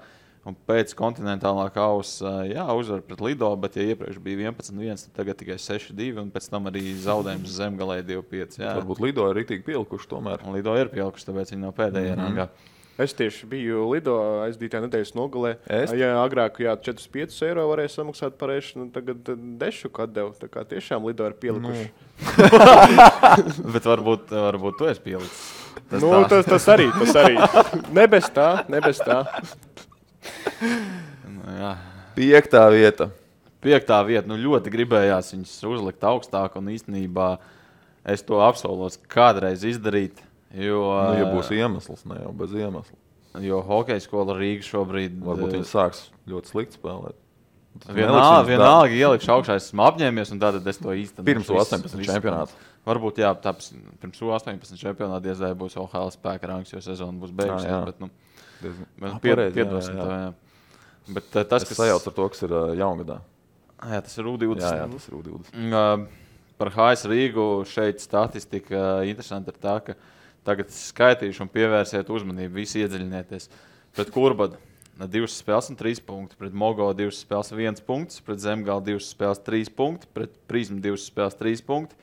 Un pēc kontinentālā kausa uzvar pret Lido, bet ja iepriekš bija 11-1, tad tagad tikai 6-2 un pēc tam arī zaudējums Zemgalē 2-5. Varbūt Lido ir rītīgi pielikuši tomēr. Lido ir pielikuši, tāpēc viņi nav pēdējā rangā. Es tieši biju Lido aizdītajā nedēļas nogalē. Ja agrāk 4-5 eiro varēja samaksāt par ēšanu, tagad dešu atdevu. Tā kā tiešām Lido ir pielikuši. Bet varbūt tu esi pielicis. Tas arī. Ne bez tā. 5. vieta. 5. vieta. Ļoti gribējās viņus uzlikt augstāk, un īstenībā es to apsolos kādreiz izdarīt. Jo, ja būs iemesls, ne jau bez iemesla. Jo hokeja skola Rīga šobrīd... Varbūt viņi sāks ļoti slikti spēlēt. Vienalga ielikšu augšā, esmu apņēmies, un tātad es to īstenošu. Pirms 18 čempionāta. Varbūt, tāpēc pirms 18 čempionāta diezvēl būs OHL spēka rangs, jo sezona būs beigusies. Piedosim to. Bet tas, kas sajauc ar to, kas ir jaungadā. Jā, tas ir U20. Jā, tas ir U20. Par HS Rīgu šeit statistika interesanti ir tā, ka tagad skaitīšu un pievērsiet uzmanību, visi iedziļinieties. Pret Kurbadu 2 spēles un 3 punkti, pret Mogo 2 spēles 1 punkts, pret Zemgali 2 spēles 3 punkti, pret Prizmu 2 spēles 3 punkti,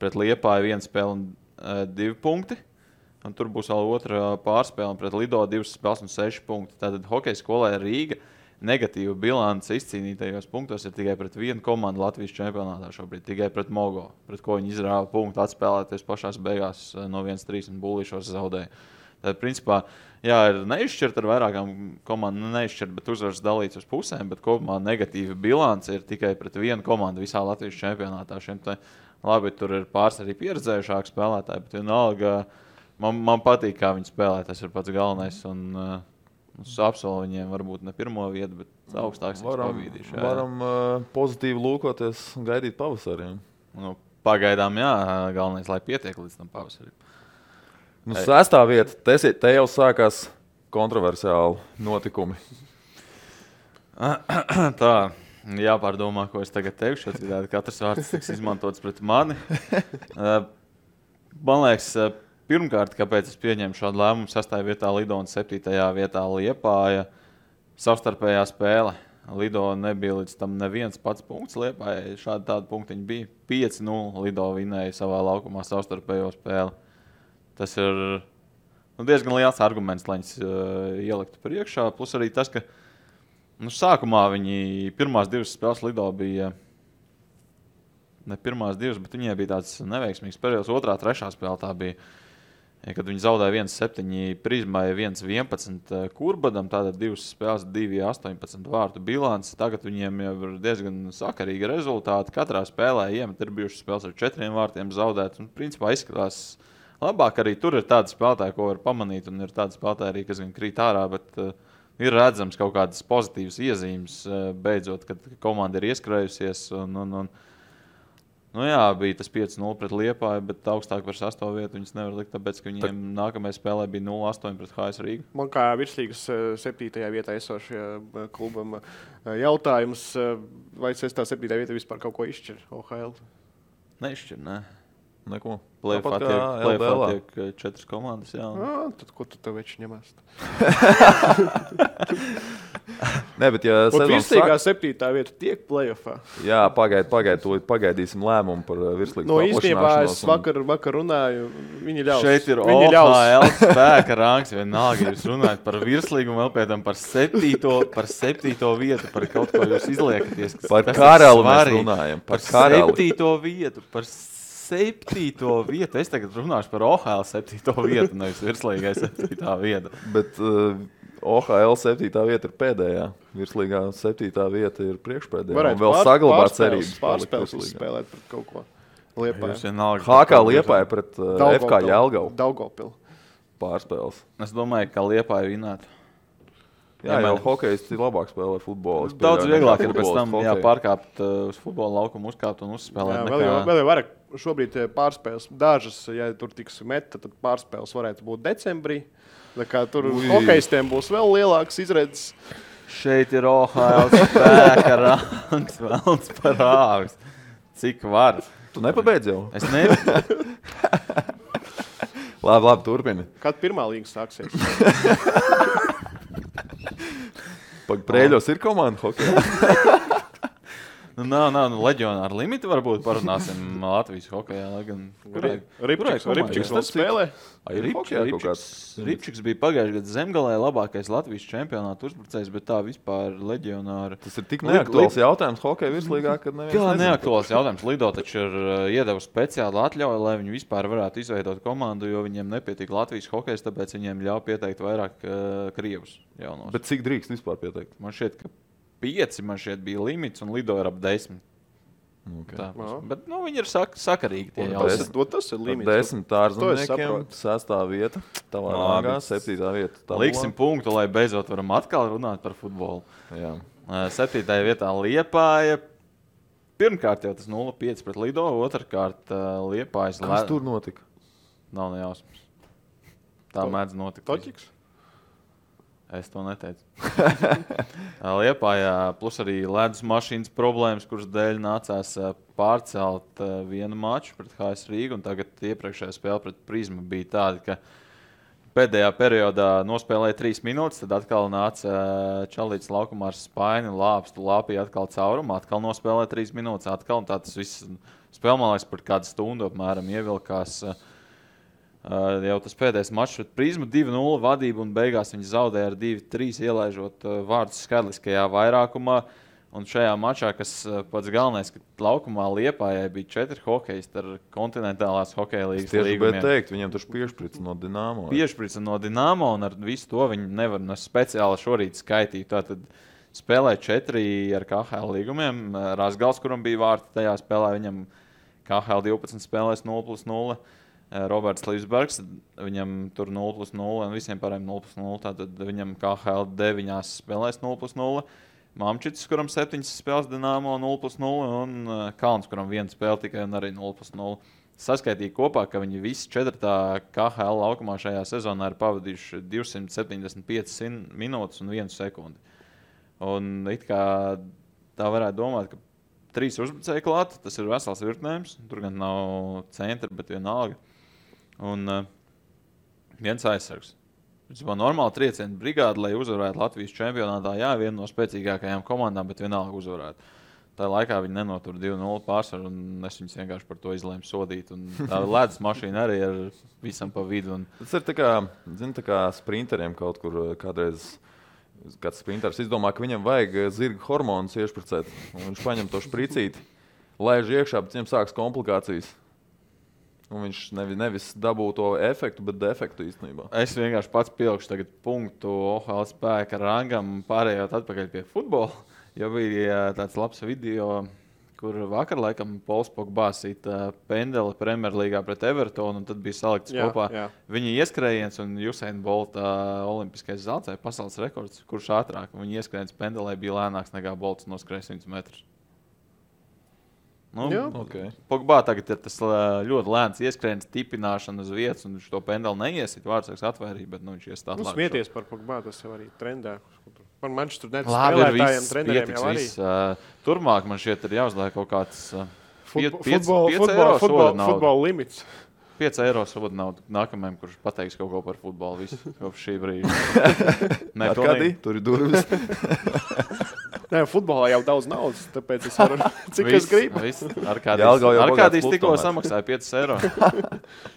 pret Liepāju 1 spēle un 2 punkti. Un tur būs vēl otra pārspēle, un pret Lido 2 spēles un 6 punkti. Tātad hokeja skolai Rīga negatīva bilance izcīnītajos punktos ir tikai pret vienu komandu Latvijas čempionātā šobrīd, tikai pret Mogo, pret ko viņi izrāva punktu atspēlēties pašās beigās no 1-3 un Bullīšos zaudēja. Tad, principā, ir neizšķirt ar vairākām komandām, neizšķirt, bet uzvaras dalīts uz pusēm, bet kopumā negatīva bilance ir tikai pret vienu komandu visā Latvijas čempionātā. Labi, tur ir pāris arī pieredzējušāki spēlētāji, bet vienalga man patīk, kā viņi spēlē, tas ir pats galvenais. Es apsolu viņiem varbūt ne pirmo vietu, bet augstāks pavīdīšu. Varam pozitīvi lūkoties un gaidīt pavasariem. Pagaidām, galvenais, lai pietiek līdz tam pavasarim. 6. vieta, te jau sākās kontroversiāli notikumi. Tā, jāpārdomā, ko es tagad teikšu, citādi katrs vārds tiks izmantots pret mani. Man liekas, pirmkārt, kāpēc es pieņēmu šādu lēmumu, 6. vietā Lido un 7. vietā Liepāja savstarpējā spēle. Lido nebija līdz tam neviens pats punkts Liepājai, šādi tādi punktiņi bija. 5-0 Lido vinēja savā laukumā savstarpējo spēli. Tas ir diezgan liels arguments, lai viņas ieliktu priekšā. Plus arī tas, ka sākumā viņi pirmās 2 spēles Lido bija... Ne pirmās 2, bet viņiem bija tāds neveiksmīgs periods. 2., 3. spēle tā bija, kad viņi zaudēja 1-7 Prizmai, 1-11 Kurbadam, tātad 2 spēles, 2-18 vārtu bilants. Tagad viņiem jau ir diezgan sakarīgi rezultāti. Katrā spēlē iemet ir bijušas spēles ar 4 vārtiem zaudēt. Un principā izskatās labāk. Arī tur ir tādi spēlētāji, ko var pamanīt, un ir tādi spēlētāji arī, kas gan krīt ārā, bet ir redzams kaut kādas pozitīvas iezīmes beidzot, kad komanda ir ieskrējusies. Bija tas 5-0 pret Liepāju, bet augstāk par 6. vietu viņas nevar likt, tāpēc, ka viņiem nākamajā spēlē bija 0-8 pret HS Rīgu. Man kā virslīgas 7. vietā esošajā klubam jautājums, vai 6. 7. vieta vispār kaut ko izšķir OHL? Neizšķir, ne. Neko. Play-offā Tāpat kā LBL. tiek 4 komandas. Jā. Tad ko tu tev veči ņemās? Nē, bet ja sezonas Virslīgā 7. vieta tiek play-offā. Jā, pagaidīsim lēmumu par virslīgas No īstenībā es paplašināšanos. vakar runāju, viņi ļaus. Šeit ir Viņi ļaus. OHL spēka rangs. Vienalga, jūs runājat par virslīgumu, vēl pēc tam par 7. vietu, par kaut ko jūs izliekaties. Par kas ir karali mēs svarīgi. runājam. Par karali. 7. vietu. Par 7. vietu. Es tagad runāšu par OHL 7. vietu, nevis virslīgai 7. vietu. Bet OHL 7. vieta ir pēdējā. Virslīgā 7. vieta ir priekšpēdējā. Varētu Un vēl saglabāt cerības. Pārspēles uzspēlēt pret kaut ko. Liepāja. Jūs vienalga, HK Liepāja pret FK Jelgavu Daugavpilu. pārspēles. Es domāju, ka Liepāja vinētu. Jā, jau hokejisti labāk spēlē futbolu. Es Daudz pieļauju, vieglāk nekā ir pēc tam futbolists hokeju. pārkāpt uz futbola laukumu, uzkāpt un uzspēlēt. Jā, nekā- vēl jau vairāk. Šobrīd pārspēles dažas, ja tur tiks meta, tad pārspēles varētu būt decembrī. Tā kā tur hokejistiem būs vēl lielāks izredzes. Šeit ir OHL spēka rangs, velns par āvis. Cik var? Tu nepabeidz jau? Es nezinu. Labi, turpini. Kad pirmā līga sāksies? Prēļos ir komanda hokeja. Nav leģionāra limita. Varbūt parunāsim Latvijas hokejā. Ripčiks vēl spēlē. Ripčiks bija pagājušajā gadā Zemgalē labākais Latvijas čempionāta uzbrucējs, bet tā vispār leģionāra. Tas ir tik neaktuāls jautājums hokeja virslīgā, kad neviens Jā, nezina. neaktuāls jautājums. Lido taču ir iedevusi speciālu atļauju, lai viņi vispār varētu izveidot komandu, jo viņiem nepietīk Latvijas hokejs, tāpēc viņiem ļauj pieteikt vairāk krievus jaunos. Bet cik drīkst vispār pieteikt? Man šķiet, ka 5 man šeit bija limits un Lido ir ap 10. Okay. Tā, bet viņi ir sakarīgi. Tie Un jautājumi. Tas ir limits. 10 ārzemniekiem, saprotu. 6. vieta, tavā Labi. rangā, 7. vieta. tabulā. Liksim punktu, lai beidzot varam atkal runāt par futbolu. Jā. 7. vietā Liepāja. Pirmkārt jau tas 0-5 pret Lido, otrkārt Liepājas. Kas tur notika? Nav nejausmas. Tā mēdz notikt. Toķiks? Es to neteicu. Liepājā plus arī ledus mašīnas problēmas, kuras dēļ nācās pārcelt vienu maču pret HS Rīgu. Tagad iepriekšējā spēle pret Prizmu bija tāda, ka pēdējā periodā nospēlēja 3 minūtes, tad atkal nāca Čalīts laukumā ar spaini, lāpstu, lāpīja atkal caurumu, atkal nospēlēja 3 minūtes, atkal. Un tā tas viss spēle, man liekas, par kādu stundu apmēram ievilkās. Jau tas pēdējais mačs pret Prizmu 2-0 vadību un beigās viņi zaudēja ar 2-3 ielaižot vārdus skaitliskajā vairākumā. Un šajā mačā, kas pats galvenais, ka laukumā Liepājai bija 4 hokejisti ar kontinentālās hokeja līgas Tieši līgumiem. bet teikt, viņiem taču piešprica no Dinamo. Piešprica no Dinamo un ar visu to viņi nevar speciāli šorīt skaitīt. Tātad spēlēja 4 ar KHL līgumiem. Razgals, kuram bija vārti tajā spēlē, viņam KHL 12 spēlēs 0+0. Roberts Līsbergs, viņam tur 0+0 un visiem pārējiem 0+0. Tātad viņam KHL 9 spēlēs 0+0. Mamčits, kuram 7 spēles Dinamo 0+0 un Kalns, kuram 1 spēle tikai un arī 0+0. Saskaitīja kopā, ka viņi visi 4. KHL laukumā šajā sezonā ir pavadījuši 275 minūtes un 1 sekundi. Un it kā tā varētu domāt, ka 3 uzbrucēji klāt, tas ir vesels virknējums. Tur gan nav centra, bet vienalga. Un viens aizsargs. Tas bija normāli triecienu brigāde, lai uzvarētu Latvijas čempionātā. Jā, viena no spēcīgākajām komandām, bet vienalga uzvarētu. Tā laikā viņi nenotur 2-0 pārsvaru, un es viņus vienkārši par to izlēmu sodīt. Un tā ledus mašīna arī ir visam pa vidu. Tas ir tā kā sprinteriem kaut kur kādreiz. Kāds sprinters izdomā, ka viņam vajag zirga hormonus iešpricēt. Viņš paņem to špricīti, laiž iekšā, bet viņam sāks komplikācijas. Un viņš nevis dabū to efektu, bet defektu īstenībā. Es vienkārši pats pielikšu tagad punktu OHL spēka rangam, pārējot atpakaļ pie futbola. Jo bija tāds labs video, kur vakar laikam Pols Pogba sita pendeli Premjerlīgā pret Evertonu, un tad bija salikts kopā viņa ieskrējiens un Usain Bolta olimpiskais zelts vai pasaules rekords, kurš ātrāk. Viņa ieskrējiens pendelē bija lēnāks nekā Bolts noskrēja 100 metrus. Okay. Pogba tagad ir tas ļoti lēns ieskrējiens, tipināšana uz vietas, un viņš to pendeli neiesit, vārdsargs atvērīja, bet viņš ies tā atklāt. Smieties par Pogba, tas jau arī trendā. Man Manchester United labi, spēlētājiem, treneriem jau arī. Turmāk man šķiet ir jāuzliek kaut kāds Futbola limits. 5 eiro soda naudu nākamajam, kurš pateiks kaut ko par futbolu visu kopš šī brīža. Arkādī, tur ir durvis. Nē, futbolā jau daudz naudas, tāpēc es varu, cik es gribu. Arkādīs tikko samaksāja 5 eiro.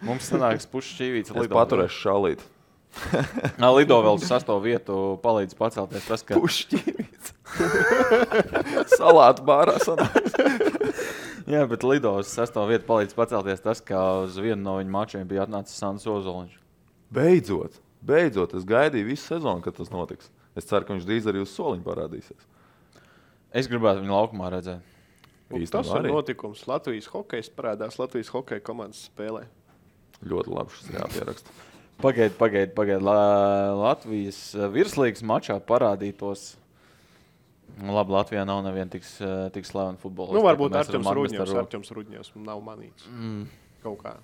Mums sanāks pušķīvīts lido. Es paturēšu šalīt. Lido vēl uz 6. vietu palīdz pacelties tas, ka... Pušķīvīts. Salātu bārā sanāks. Jā, bet Lido uz 6. vietu palīdz pacelties tas, ka uz vienu no viņu mačiem bija atnācis Sandis Ozoliņš. Beidzot. Es gaidīju visu sezonu, kad tas notiks. Es ceru, ka viņš drīz arī uz soliņu parādīsies. Es gribētu viņu laukumā redzēt. Tas ir notikums. Latvijas hokejs parādās Latvijas hokeja komandas spēlē. Ļoti labi šis jāpieraksta. Pagaid. Latvijas virslīgas mačā parādītos. Labi, Latvijā nav neviena tik slavena futbolists. Varbūt Artjoms Rudņevs nav manīts. Kaut kā.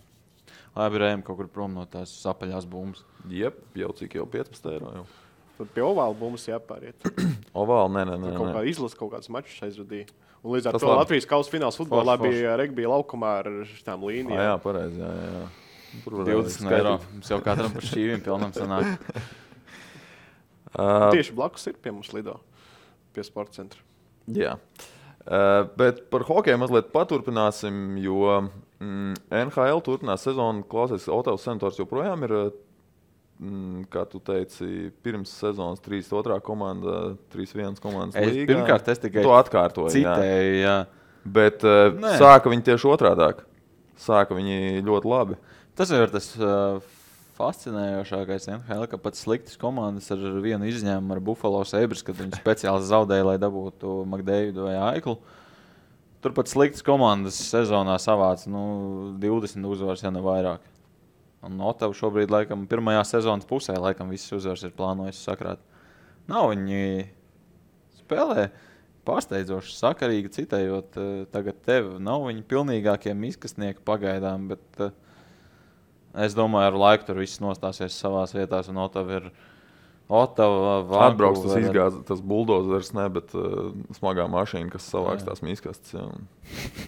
Labi, rējam kaut kur prom no tās apaļās bumbas. Jep, jau cik jau 15 eiro jau. Tad pie ovāla bumbas jāpāriet. Ovāla, nē. Kaut kā izlas kaut kāds mačus aizvadīja. Un līdz ar to Latvijas kausa fināls futbolā bija regbija laukumā ar šitām līnijām. Jā, pareizi, jā. 20 eiro. Mums jau katram par šķīviem pilnam sanāk. Tieši blakus ir pie mums Lido. Pie sporta centra. Jā. Bet par hokeju mazliet paturpināsim, jo NHL turpinās sezonu. Klausies, Otavas Senators joprojām ir, kā tu teici, pirms sezonas 3-2 komanda, 3-1 komandas līgā. Pirmkārt, es tikai to atkārtoju. Citēju, jā. Bet sāka viņi tieši otrādāk. Sāka viņi ļoti labi. Tas ir tas fascinējošākais NHL, ka pat sliktas komandas ar vienu izņēmumu ar Buffalo Sabres, kad viņi speciāli zaudēja, lai dabūtu McDavidu vai Aiklu. Turpat sliktas komandas sezonā savāca 20 uzvaras, ja ne vairāk. Un Ottava šobrīd, laikam, pirmajā sezonas pusē, laikam, visas uzvaras ir plānojis sakrāt. Nav viņi spēlē pārsteidzoši sakarīgi, citējot tagad tevi. Nav viņi pilnīgākie miskastnieki pagaidām, bet es domāju, ar laiku tur viss nostāsies savās vietās, un Ottava ir atbrauks tas izgāz, tas buldozers, ne, bet smagā mašīna, kas savāks tās miskastes, ja, un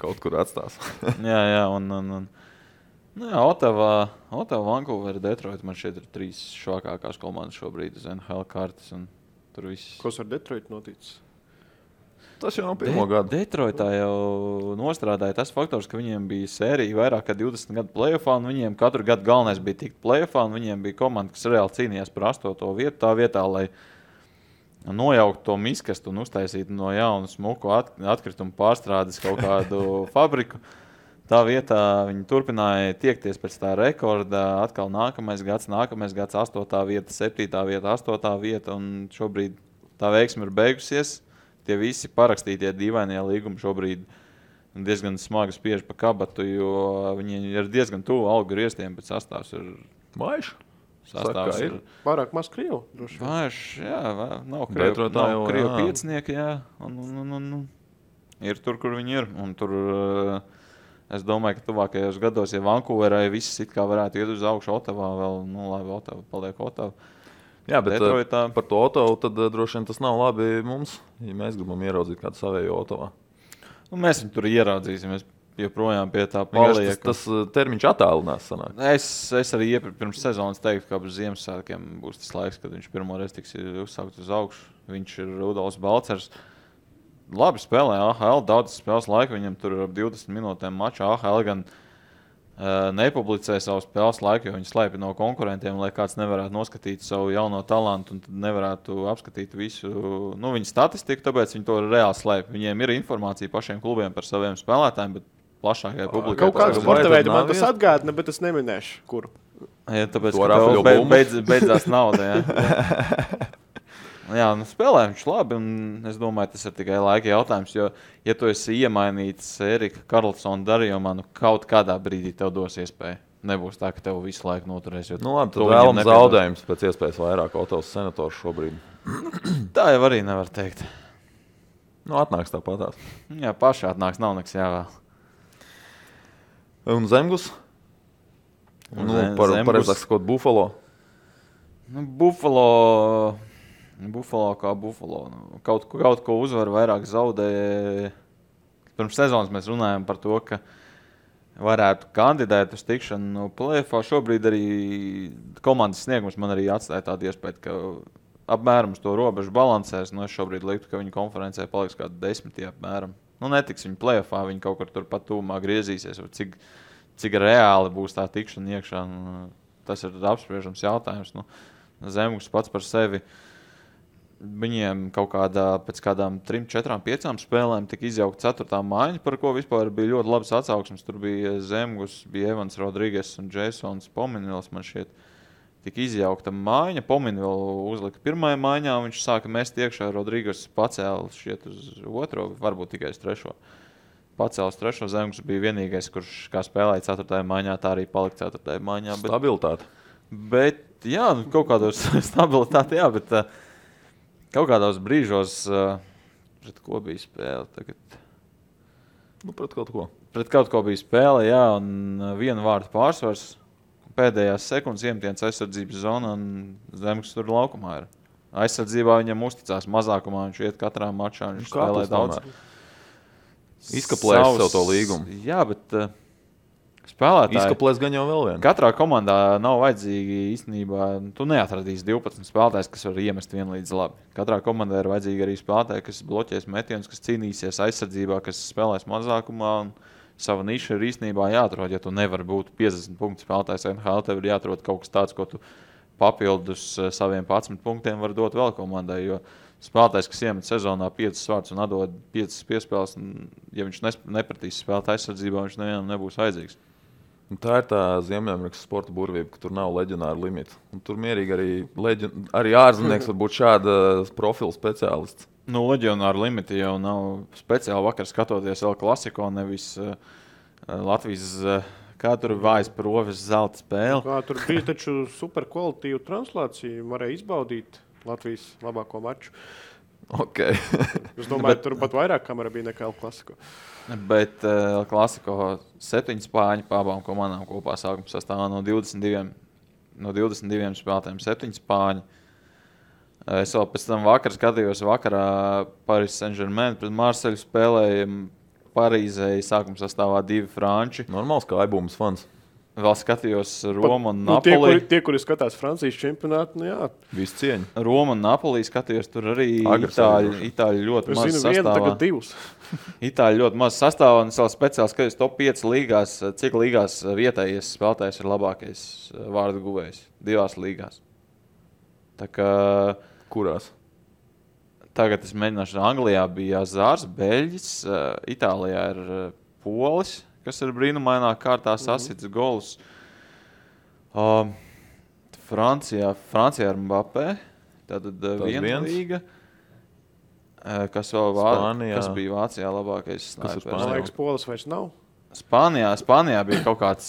kaut kur atstās. jā, Ottava, Vancouver, Detroit, man šeit ir 3 švakākās komandas šobrīd uz NHL kartes, un tur viss. Kas ar Detroit noticis? Tas jau nav pirmo gadu. Detroitā jau nostrādāja tas faktors, ka viņiem bija sērija vairāk kā 20 gadu play-offā, un viņiem katru gadu galvenais bija tikt play-offā, un viņiem bija komanda, kas reāli cīnījās par 8. vietu tā vietā, lai nojauktu to miskastu un uztaisītu no jaunu smuku atkritumu pārstrādes kaut kādu fabriku. Tā vietā viņi turpināja tiekties pēc tā rekorda, atkal nākamais gads, 8. vieta, 7. vieta, 8. vieta, un šobrīd tā veiksme ir beigusies. Tie visi parakstītie dīvainie līgumi šobrīd diezgan smagi spiež pa kabatu, jo viņi ir diezgan tuvu algu griestiem, bet sastāvs ir vājš. Sastāvs ir pārāk maz krievu. Vājš, jā, nav krievu piecinieki, jā. Un ir tur, kur viņi ir. Un tur, es domāju, ka tuvākajos gados, ja Vancouverai viss it kā varētu iet uz augšu Ottavā vēl, labi, Ottava paliek Ottava. Jā, bet par to Ottavu tad droši vien tas nav labi mums, ja mēs gribam ieraudzīt kādu savējo Ottavā. Mēs viņu tur ieraudzīsim, es joprojām pie tā palieku. Tas termiņš attālinās sanāk. Es arī pirms sezonas teiktu, ka ap Ziemassvētkiem būs tas laiks, kad viņš pirmoreiz tiks uzsaukt uz augšu. Viņš ir Rudolfs Balcers. Labi spēlē AHL, daudz spēles laika, viņam tur ir ap 20 minūtēm mačā. AHL gan nepublicē savu spēles laiku, jo viņi slēpj no konkurentiem, lai kāds nevarētu noskatīt savu jauno talantu un nevarētu apskatīt visu viņu statistiku, tāpēc viņi to reāli slēpj. Viņiem ir informācija pašiem klubiem par saviem spēlētājiem, bet plašākai publikai. Kaut kādu sporta veidu man tas atgādina, bet es neminēšu, kuru. Ja, tāpēc, ka beidzās nauda, jā. Jā, spēlē viņš labi, un es domāju, tas ir tikai laika jautājums, jo, ja tu esi iemainīts Erika Karlsona darījumā, kaut kādā brīdī tev dos iespēju. Nebūs tā, ka tev visu laiku noturēs. Labi, tad vēlam zaudējums pēc iespējas vairāk Otavas Senators šobrīd. Tā jau arī nevar teikt. Atnāks tāpatās. Jā, paši atnāks, nav nekas jāvēl. Un Zemgus? Pareizāk sakot, Buffalo? Buffalo kā Buffalo. Kaut ko uzvar, vairāk zaudēja. pirms sezonas mēs runājam par to, ka varētu kandidēt uz tikšanu play-offā. Šobrīd arī komandas sniegums man arī atstāja tādu iespēju, ka apmēram uz to robežu balansēs. Es šobrīd liktu, ka viņi konferencē paliks kādi 10 apmēram. Netiks viņi play-offā, viņi kaut kur tur pat tūmā griezīsies. Cik reāli būs tā tikšana iekšā, tas ir apspriežams jautājums. Zemgus pats par sevi. Viņiem pēc kādām 3, 4, 5 spēlēm tika izjaukta 4. maiņa, par ko vispār bija ļoti labas atsauksmes. Tur bija Zemgus, bija Evans Rodrīgas un Jasons Pominvils, man šķiet, tika izjaukta maiņa. Pominvils uzlika 1. maiņā, viņš sāka mest iekšā, Rodrīgas pacēla šķiet uz 2, varbūt tikai uz 3. Pacēla uz 3. Zemgus bija vienīgais, kurš kā spēlēja 4. maiņā, tā arī palika 4. maiņā. Stabilitāte. Bet, jā, kaut kādos stabilitāte, jā, bet kaut kādos brīžos pret ko bija spēle tagad? Pret kaut ko. Pret kaut ko bija spēle, jā, un 1 vārdu pārsvars. Pēdējās sekundes iemetiens aizsardzības zonā, un Zemgus tur laukumā ir. Aizsardzībā viņam uzticās mazākumā, viņš iet katrā mačā, viņš spēlē daudz. Izkaplēs sev to līgumu. Jā, bet spēlētāji. Izkaplēs gan jau vēl vienu. Katrā komandā nav vajadzīgi īstenībā, tu neatradīsi 12 spēlētājs, kas var iemest vienlīdz labi. Katrā komandā ir vajadzīgi arī spēlētāji, kas bloķēs metienus, kas cīnīsies aizsardzībā, kas spēlēs mazākumā. Un sava niša ir īstenībā jāatrod. Ja tu nevari būt 50 punktu spēlētājs NHL, tev ir jāatrod kaut kas tāds, ko tu papildus saviem 11 punktiem var dot vēl komandai. Jo spēlētājs, kas iemet sezonā 5 vārdus un atdod 5 piespēles, ja viņš nepratīs spēlēt aizsardzībā, viņš nevienam nebūs vajadzīgs. Un tā ir tā Ziemeļamerikas sporta burvība, ka tur nav leģionāra limita. Un tur mierīgi arī ārzemnieks var būt šāda profila speciālists. Leģionāra limita jau nav speciāli vakar skatoties vēl klasiko, nevis Latvijas, kā tur vājas proves zelta spēle. Tur bija taču super kvalitīva translācija, varēja izbaudīt Latvijas labāko maču. Okay. Es domāju, tur pat vairāk kamera bija nekā El Clasico. Bet Klasiko 7 spāņu pa abām komandām kopā sākuma sastāvā no 22 spēlētājiem 7 spāņi. Es vēl pēc tam vakar skatījos vakarā Paris Saint-Germain pret Marseļu spēlēja Parīzē sākuma sastāvā 2 franči. Normāls kā aibūmas fans. Vēl skatījos Romu un Napoli. Tie, kuri skatās Francijas čempionātu, jā. Visu cieņu. Romu un Napoli skatījos, tur arī Itāļi ļoti maz sastāvā. Tagad 2. Itāļi ļoti maz sastāvā, un es vēl speciāli skatījos top 5 līgās, cik līgās vietējais spēlētājs ir labākais vārdu guvējs. 2 līgās. Tā kā... Kurās? Tagad es mēģināšu. Anglijā bija Zārs, Beļģis, Itālijā ir Polis, kas ir brīnumainā kārtā sasits golus. Francijā ir Mbappé, tātad viena līga. Kas bija Vācijā labākais snipers? Man liekas, Polis vairs nav. Spānijā bija kaut kāds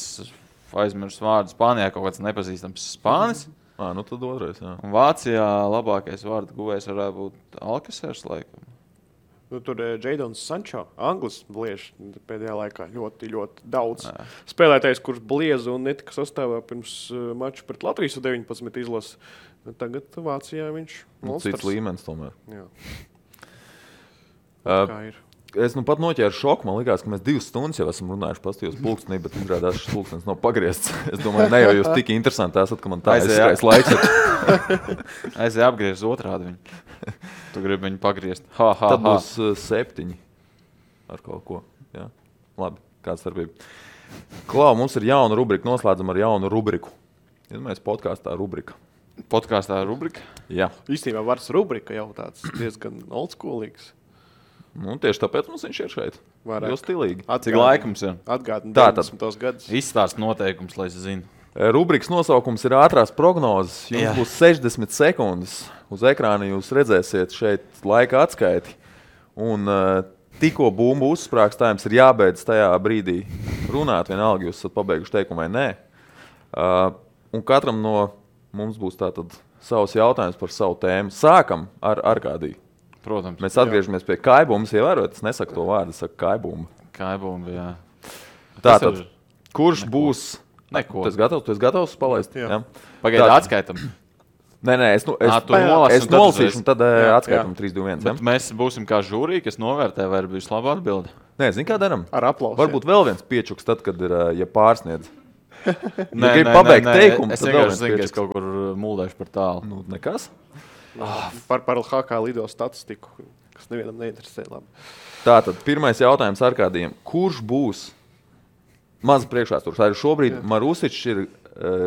aizmirsts vārds. Spānijā kaut kāds nepazīstams spānis. Nu tad otrais, jā. Un Vācijā labākais vārdu guvējs varētu būt Alkasers, laikam. Tur Jadons Sančo, Anglis bliež pēdējā laikā ļoti, ļoti daudz. Spēlētājs, kurš blieza un netika sastāvā pirms maču pret Latvijas 19 izlases. Tagad Vācijā viņš monsters. Cits līmenis tomēr. Jā. Kā ir? Es pat noķēru šoku. Man likās, ka mēs 2 stundas jau esam runājuši pastījos pulkstenī, bet izrādās šis pulkstens nav pagriezts. Es domāju, ne jau jūs tik interesanti esat, ka man tā aizskrais laiks. Aizēja apgriezt otrādi viņu. Tu gribi viņu pagriezt. Tad būs 7 ar kaut ko. Jā. Labi, kāda starpība. Klau, mums ir jauna rubrika. Noslēdzam ar jaunu rubriku. Iedomājies podkāstā rubrika. Podkāstā rubrika? Jā. Īstenībā vārds rubrika jau tāds diezgan oldschoolīgs. Tieši tāpēc mums viņš ir šeit. Jo stilīgi. Cik laika mums ir? Atgādina 90. gadus. Izstāst noteikums, lai es zinu. Rubrikas nosaukums ir ātrās prognozes. Jums būs 60 sekundes. Uz ekrāna jūs redzēsiet šeit laika atskaiti. Un tikko bumbu uzsprāgs, tā jums ir jābeidz tajā brīdī runāt. Vienalga, jūs esat pabeiguši teikumu vai nē. Un katram no mums būs tātad savs jautājums par savu tēmu. Sākam ar Arkādiju. Protams. Mēs atgriežamies pie kaibumas. Ievērot, es nesaku to vārdu, es saku kaibuma. Kaibuma, jā. Tātad, kurš būs... Neko. Tu esi gatavs palaist? Jā. Pagaidi, atskaitam. Nē, es nolasīšu un tad atskaitam 3, 2, 1. Bet mēs būsim kā žūrī, kas novērtē, vai ir bijusi laba atbilde. Nē, zini, kā daram? Ar aplausiem. Varbūt vēl viens piečuks tad, kad ir, ja pārsniedz. Nē, grib pabeigt teikumu, es tad vēl vienkārši viens zinu, ka es piečuks. kaut kur muldēšu par tālu. Nu, nekas. Par LHK lido statistiku, kas nevienam neinteresē. Labi. Tātad, pirmais jautājums Arkādijam. Kurš būs maz priekšvēstures? Arī šobrīd Marusičs ir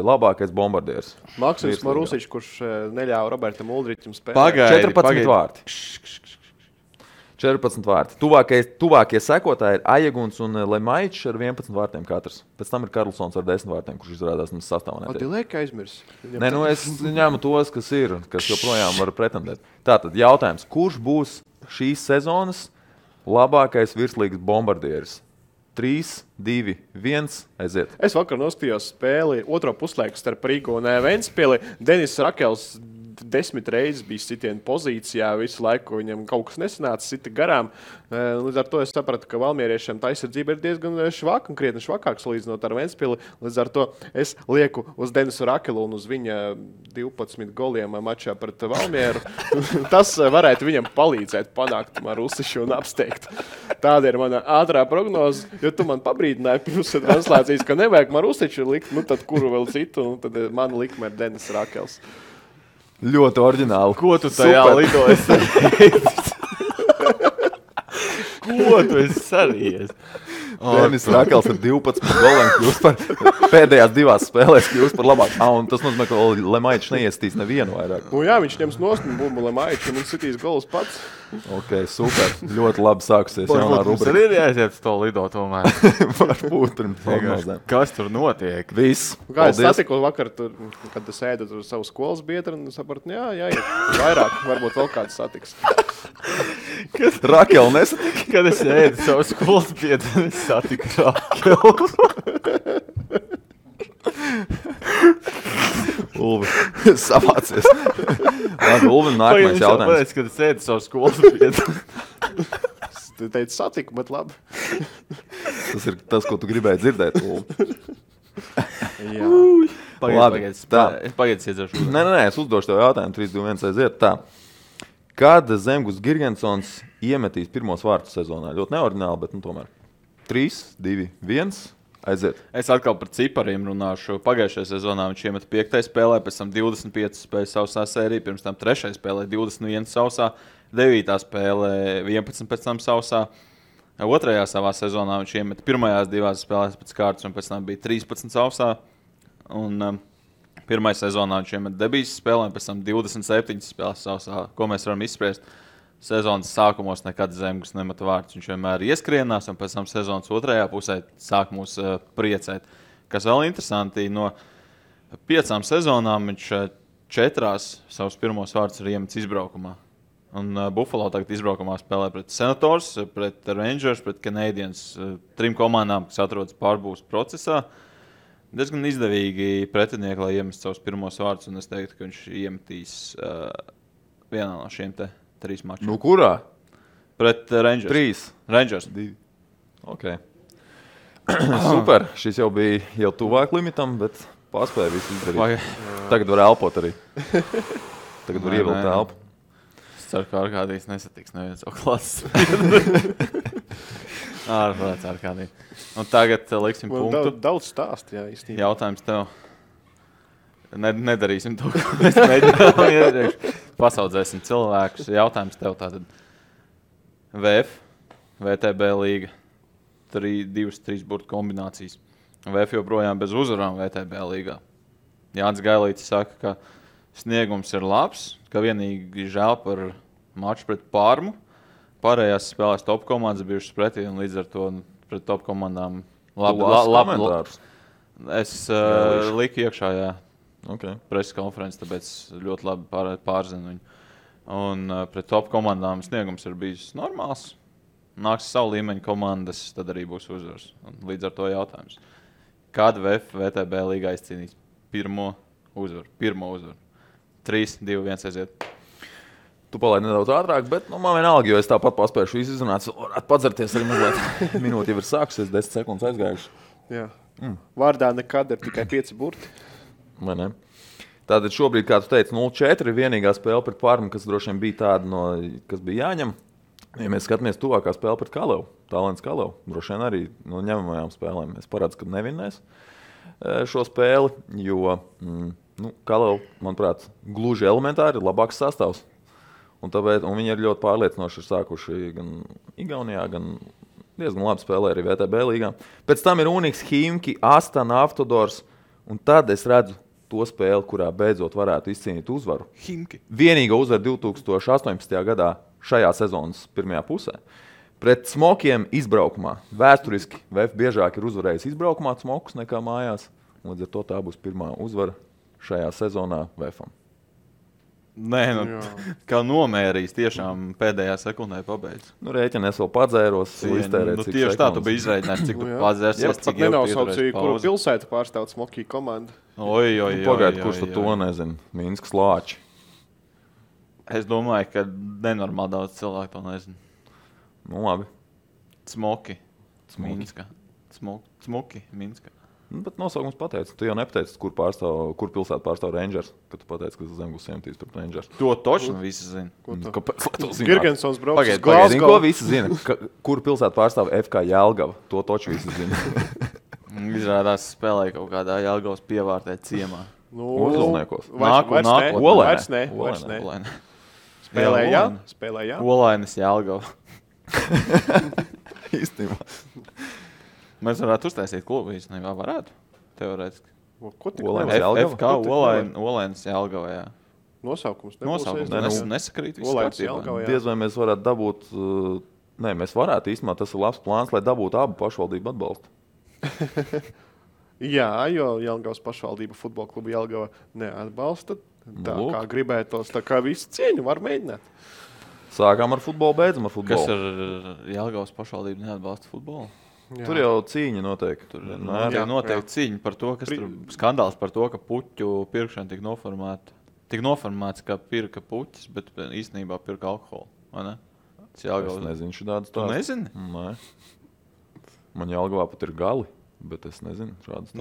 labākais bombardieris. Maksims Marusičs, kurš neļāva Robertam Uldriķim spēlēt. Pagaidi, 14 vārti. 14 vārti. Tuvākie sekotāji ir Ajeguns un Lemaičs ar 11 vārtiem katrs. Pēc tam ir Karlsons ar 10 vārtiem, kurš izrādās mums sastāvā. Dilēka aizmirs. Nē, nu es ņēmu tos, kas ir, kas joprojām var pretendēt. Tātad jautājums, kurš būs šīs sezonas labākais virslīgas bombardieris? 3, 2, 1, aiziet. Es vakar noskatījos spēli otro puslaiku starp Rīgu un Ventspili. Denis Rakels 10 reizes bija sitiena pozīcijā, visu laiku viņam kaut kas nesanāca, sita garām. Līdz ar to es sapratu, ka valmieriešiem tā aizsardzība ir diezgan švaka un krietni švakāk salīdzinot ar Ventspili. Līdz ar to es lieku uz Denisu Rakelu un uz viņa 12 goliem mačā pret Valmieru. Tas varētu viņam palīdzēt panākt Marusišu un apsteigt. Tāda ir mana ātrā prognoze, jo tu man pabrīdināji pirms translācijas, ka nevajag Marusiču likt, nu tad kuru vēl citu, un tad mana likme ir Denis Rakels. Ļoti oriģināli. Ko tu tajā lidoji? Ko tu esi sarījies? Denis Rakels ar 12 goliem kļūst par pēdējās divās spēlēs kļūst par labāk. Un tas nozīmē, ka Lemaičs neiestīs nevienu vairāk. Nu jā, viņš ņems nost un bumbu Lemaiču un sitīs golus pats. Ok, super. Ļoti labi sākusies jaunā Mums rubrika. arī ir jāiziet uz to lido tomēr. Varbūt pirms prognozēm. Kas tur notiek? Viss. Kā es satiku vakar, tur, kad es ēdu tur savu skolas biedru un sapratu, jā, vairāk, varbūt vēl kāds satiks. Rakela nesatika. Kad es ēdu savu skolas biedru, es satiku Rakelu. Ulvi, savācies. Labi, Ulvi, nākamais jautājums. Pēc, kad es ēdu savu skolas biedru. Tu teici satiku, bet labi. Tas ir tas, ko tu gribēji dzirdēt, Ulvi. Jā. Pagaidies, iedzeršu. Nē, es uzdošu tev jautājumu. 3, 2, 1, aiziet tā. Kad Zemgus Girgensons iemetīs pirmos vārtus sezonā? Ļoti neordināli, bet tomēr. 3, 2, 1, aiziet. Es atkal par cipariem runāšu. Pagājušajā sezonā viņš iemeta 5. spēlē, pēc tam 25 spēles sausā sērija, pirms tam 3. spēlē 21 sausā, 9. spēlē 11 pēc tam sausā. 2. savā sezonā viņš iemeta pirmajās 2 spēlēs pēc kārtas, un pēc tam bija 13 sausā. Un 1. sezonā viņš iemeta debijas spēlēm, pēc tam 27 spēles sausā. Ko mēs varam izspriest? Sezonas sākumos nekad Zemgus nemeta vārtus. Viņš vienmēr ieskrienās, un pēc tam sezonas otrajā pusē sāk mūs priecēt. Kas vēl interesanti, no 5 sezonām viņš 4 savus pirmos vārtus ir iemetis izbraukumā. Un Buffalo tagad izbraukumā spēlē pret Senators, pret Rangers, pret Canadiens. 3 komandām, kas atrodas pārbūves procesā. Diezgan izdevīgi pretinieki, lai iemestu savus pirmos vārtus, un es teiktu, ka viņš iemetīs vienā no šiem 3 mačiem. Nu, kurā? Pret Rangers. 3. Rangers. 2. Ok. Super. Šis jau bija jau tuvāk limitam, bet paspēja visu izdarīt. Tagad var elpot arī. Tagad var ievilkt elpu. Es ceru, ka Arkādijs nesatiks neviens savu klases. Ārprāts Arkādijs. Un tagad liksim punktu. Daudz stāst, jā, īstenībā. Jautājums tev. Nedarīsim to, ko mēs mēģinām iepriekš. Pasaudzēsim cilvēkus. Jautājums tev tātad. VF, VTB līga. 2-3 burtu kombinācijas. VF joprojām bez uzvarām VTB līgā. Jānis Gailītis saka, ka sniegums ir labs, ka vienīgi žēl par maču pret Parmu. Pārējās spēlēs top komandas bijušas pretī, un līdz ar to pret top komandām labi. Es liku iekšā, jā. Okay. Preses konferences, tāpēc ļoti labi pārzinu viņu. Un pret top komandām sniegums ir bijis normāls. Nāks savu līmeņu komandas, tad arī būs uzvars. Un līdz ar to jautājums. Kad VTB līgā izcīnīs pirmo uzvaru? 3, 2, 1, aiziet. Tu palaidi nedaudz ātrāk, bet man vienalga, jo es tāpat paspējuši visu izrunāt. Varētu padzerties arī mazliet. Minūte jau ir sākusies, 10 sekundes aizgājuši. Jā. Vārdā nekad ir tikai 5 burti. Vai ne? Tātad šobrīd, kā tu teici, 0-4 ir vienīgā spēle pret Parmu, kas droši vien bija tāda, kas bija jāņem. Ja mēs skatāmies tuvākā spēle pret Kalevu, Talents Kalevu, droši vien arī no ņemamajām spēlēm mēs parādām, ka nevinnēs šo spēli, jo Kalevu, manuprāt, gluži elementāri ir labāks sastāvs. Un viņi ir ļoti pārliecinoši sākuši gan Igaunijā, gan diezgan labi spēlē arī VTB līgā. Pēc tam ir Unix, Himki, Astana, Autodors, un tad es redzu to spēli, kurā beidzot varētu izcīnīt uzvaru. Himki. Vienīga uzvara 2018. gadā šajā sezonas pirmajā pusē. Pret Smokiem izbraukumā. Vēsturiski VF biežāk ir uzvarējis izbraukumā Smokus nekā mājās. Līdz ar to tā būs pirmā uzvara šajā sezonā VFam. Nē, kā nomērījis, tiešām pēdējā sekundē pabeidz. Rēķini es vēl padzēros, iztērēt cik tieši sekundes. tā, tu biji izrēķinājis, cik tu padzērsies, cik jau nenosaucīja, kuru pilsētu pārstāv Smokī komanda. Pagaid, kurš to nezina? Minskas Lāči. Es domāju, ka nenormāli daudz cilvēku to nezina. Labi. Smoki. Minska. Smoki, Minska. Bet nosaukums pateica. Tu jau nepateici, kur pilsētu pārstāv Rangers, kad tu pateici, ka Zemgus iemetīs pret Rangers. To točno visi zina. Kāpēc? Girgensons brauc uz Pagaid, Glasgow. ko visi zina? Kur pilsētu pārstāv FK Jelgava? To toču visi zina. Izrādās spēlēja kaut kādā Jelgavas pievārtē ciemā. Uzvalniekos. Vairs ne. Spēlēja. Olainas Jelgava. Īstenībā. Mēs varētu uztaisīt klubu īstenībā, varētu, teorētiski. Ko tik Olainas Jelgava? FK Olainas Jelgava, jā. Nosaukums nesakrīt viss kārtībā. Diez vai mēs varētu dabūt, mēs varētu īstenībā, tas ir labs plāns, lai dabūtu abu pašvaldību atbalstu. Jā, jo Jelgavas pašvaldība futbola klubu Jelgava neatbalsta. Tā kā gribētos, tā kā visi cieņu var mēģināt. Sākām ar futbolu, beidzam ar futbolu. Kas ar Jelgavas pašvaldību neatbalsta futbolu? Jā. Tur jau cīņa notiek. Tur notiek cīņa par to, kas tur skandāls par to, ka puķu pirkšana tika noformēta. Tik noformēts, ka pirka puķis, bet īstenībā pirka alkoholu. Vai ne? Es nezinu šādas Tu nezini? Nē. Man Jelgavā pat ir gali, bet es nezinu šādas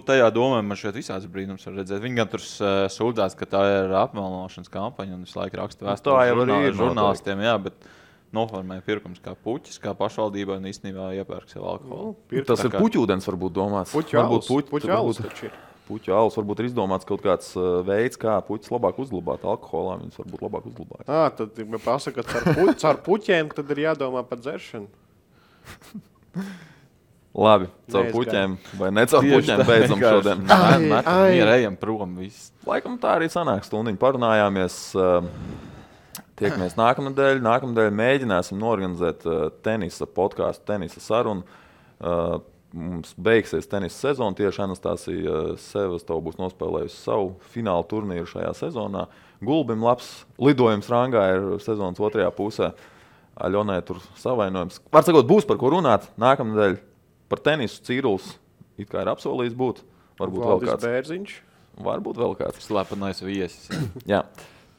tajā domā man šeit visāds brīnums var redzēt. Viņi gan tur sūdzās, ka tā ir apmelnošanas kampaņa un visu laiku raksta vēstuli žurnālistiem, jā, bet noformēja pirkums kā puķis, kā pašvaldībai un īstenībā iepērk sev alkoholu. Tas ir puķūdens varbūt domāts. Puķu alus taču ir. Puķu alus varbūt ir izdomāts kaut kāds veids, kā puķis labāk uzglabāt alkoholā. Viņus varbūt labāk uzglabāt. Tad pasaka, ka caur puķiem tad ir jādomā par dzeršanu. Labi, caur puķiem vai ne caur puķiem beidzam šodien. Ejam prom viss. Laikam tā arī sanāk stundiņu parunājāmies. Tiekamies nākamnedēļ. Nākamnedēļ mēģināsim norganizēt tenisa podkāstu, tenisa sarunu. Mums beigsies tenisa sezona. Tieši Anastasija Sevastova būs nospēlējusi savu finālu turnīru šajā sezonā. Gulbim labs lidojums rangā ir sezonas otrajā pusē. Aļonai tur savainojums. Var sakot, būs par ko runāt. Nākamnedēļ par tenisu Cīruls it kā ir apsolījis būt. Varbūt vēl kāds. Bērziņš. Varbūt vēl kāds. Slepenais viesis. Jā.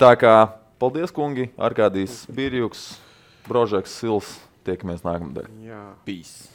Tā kā paldies, kungi. Arkādijs Birjuks, Brožeks Sils. Tiekamies nākamnedēļ. Jā. Peace.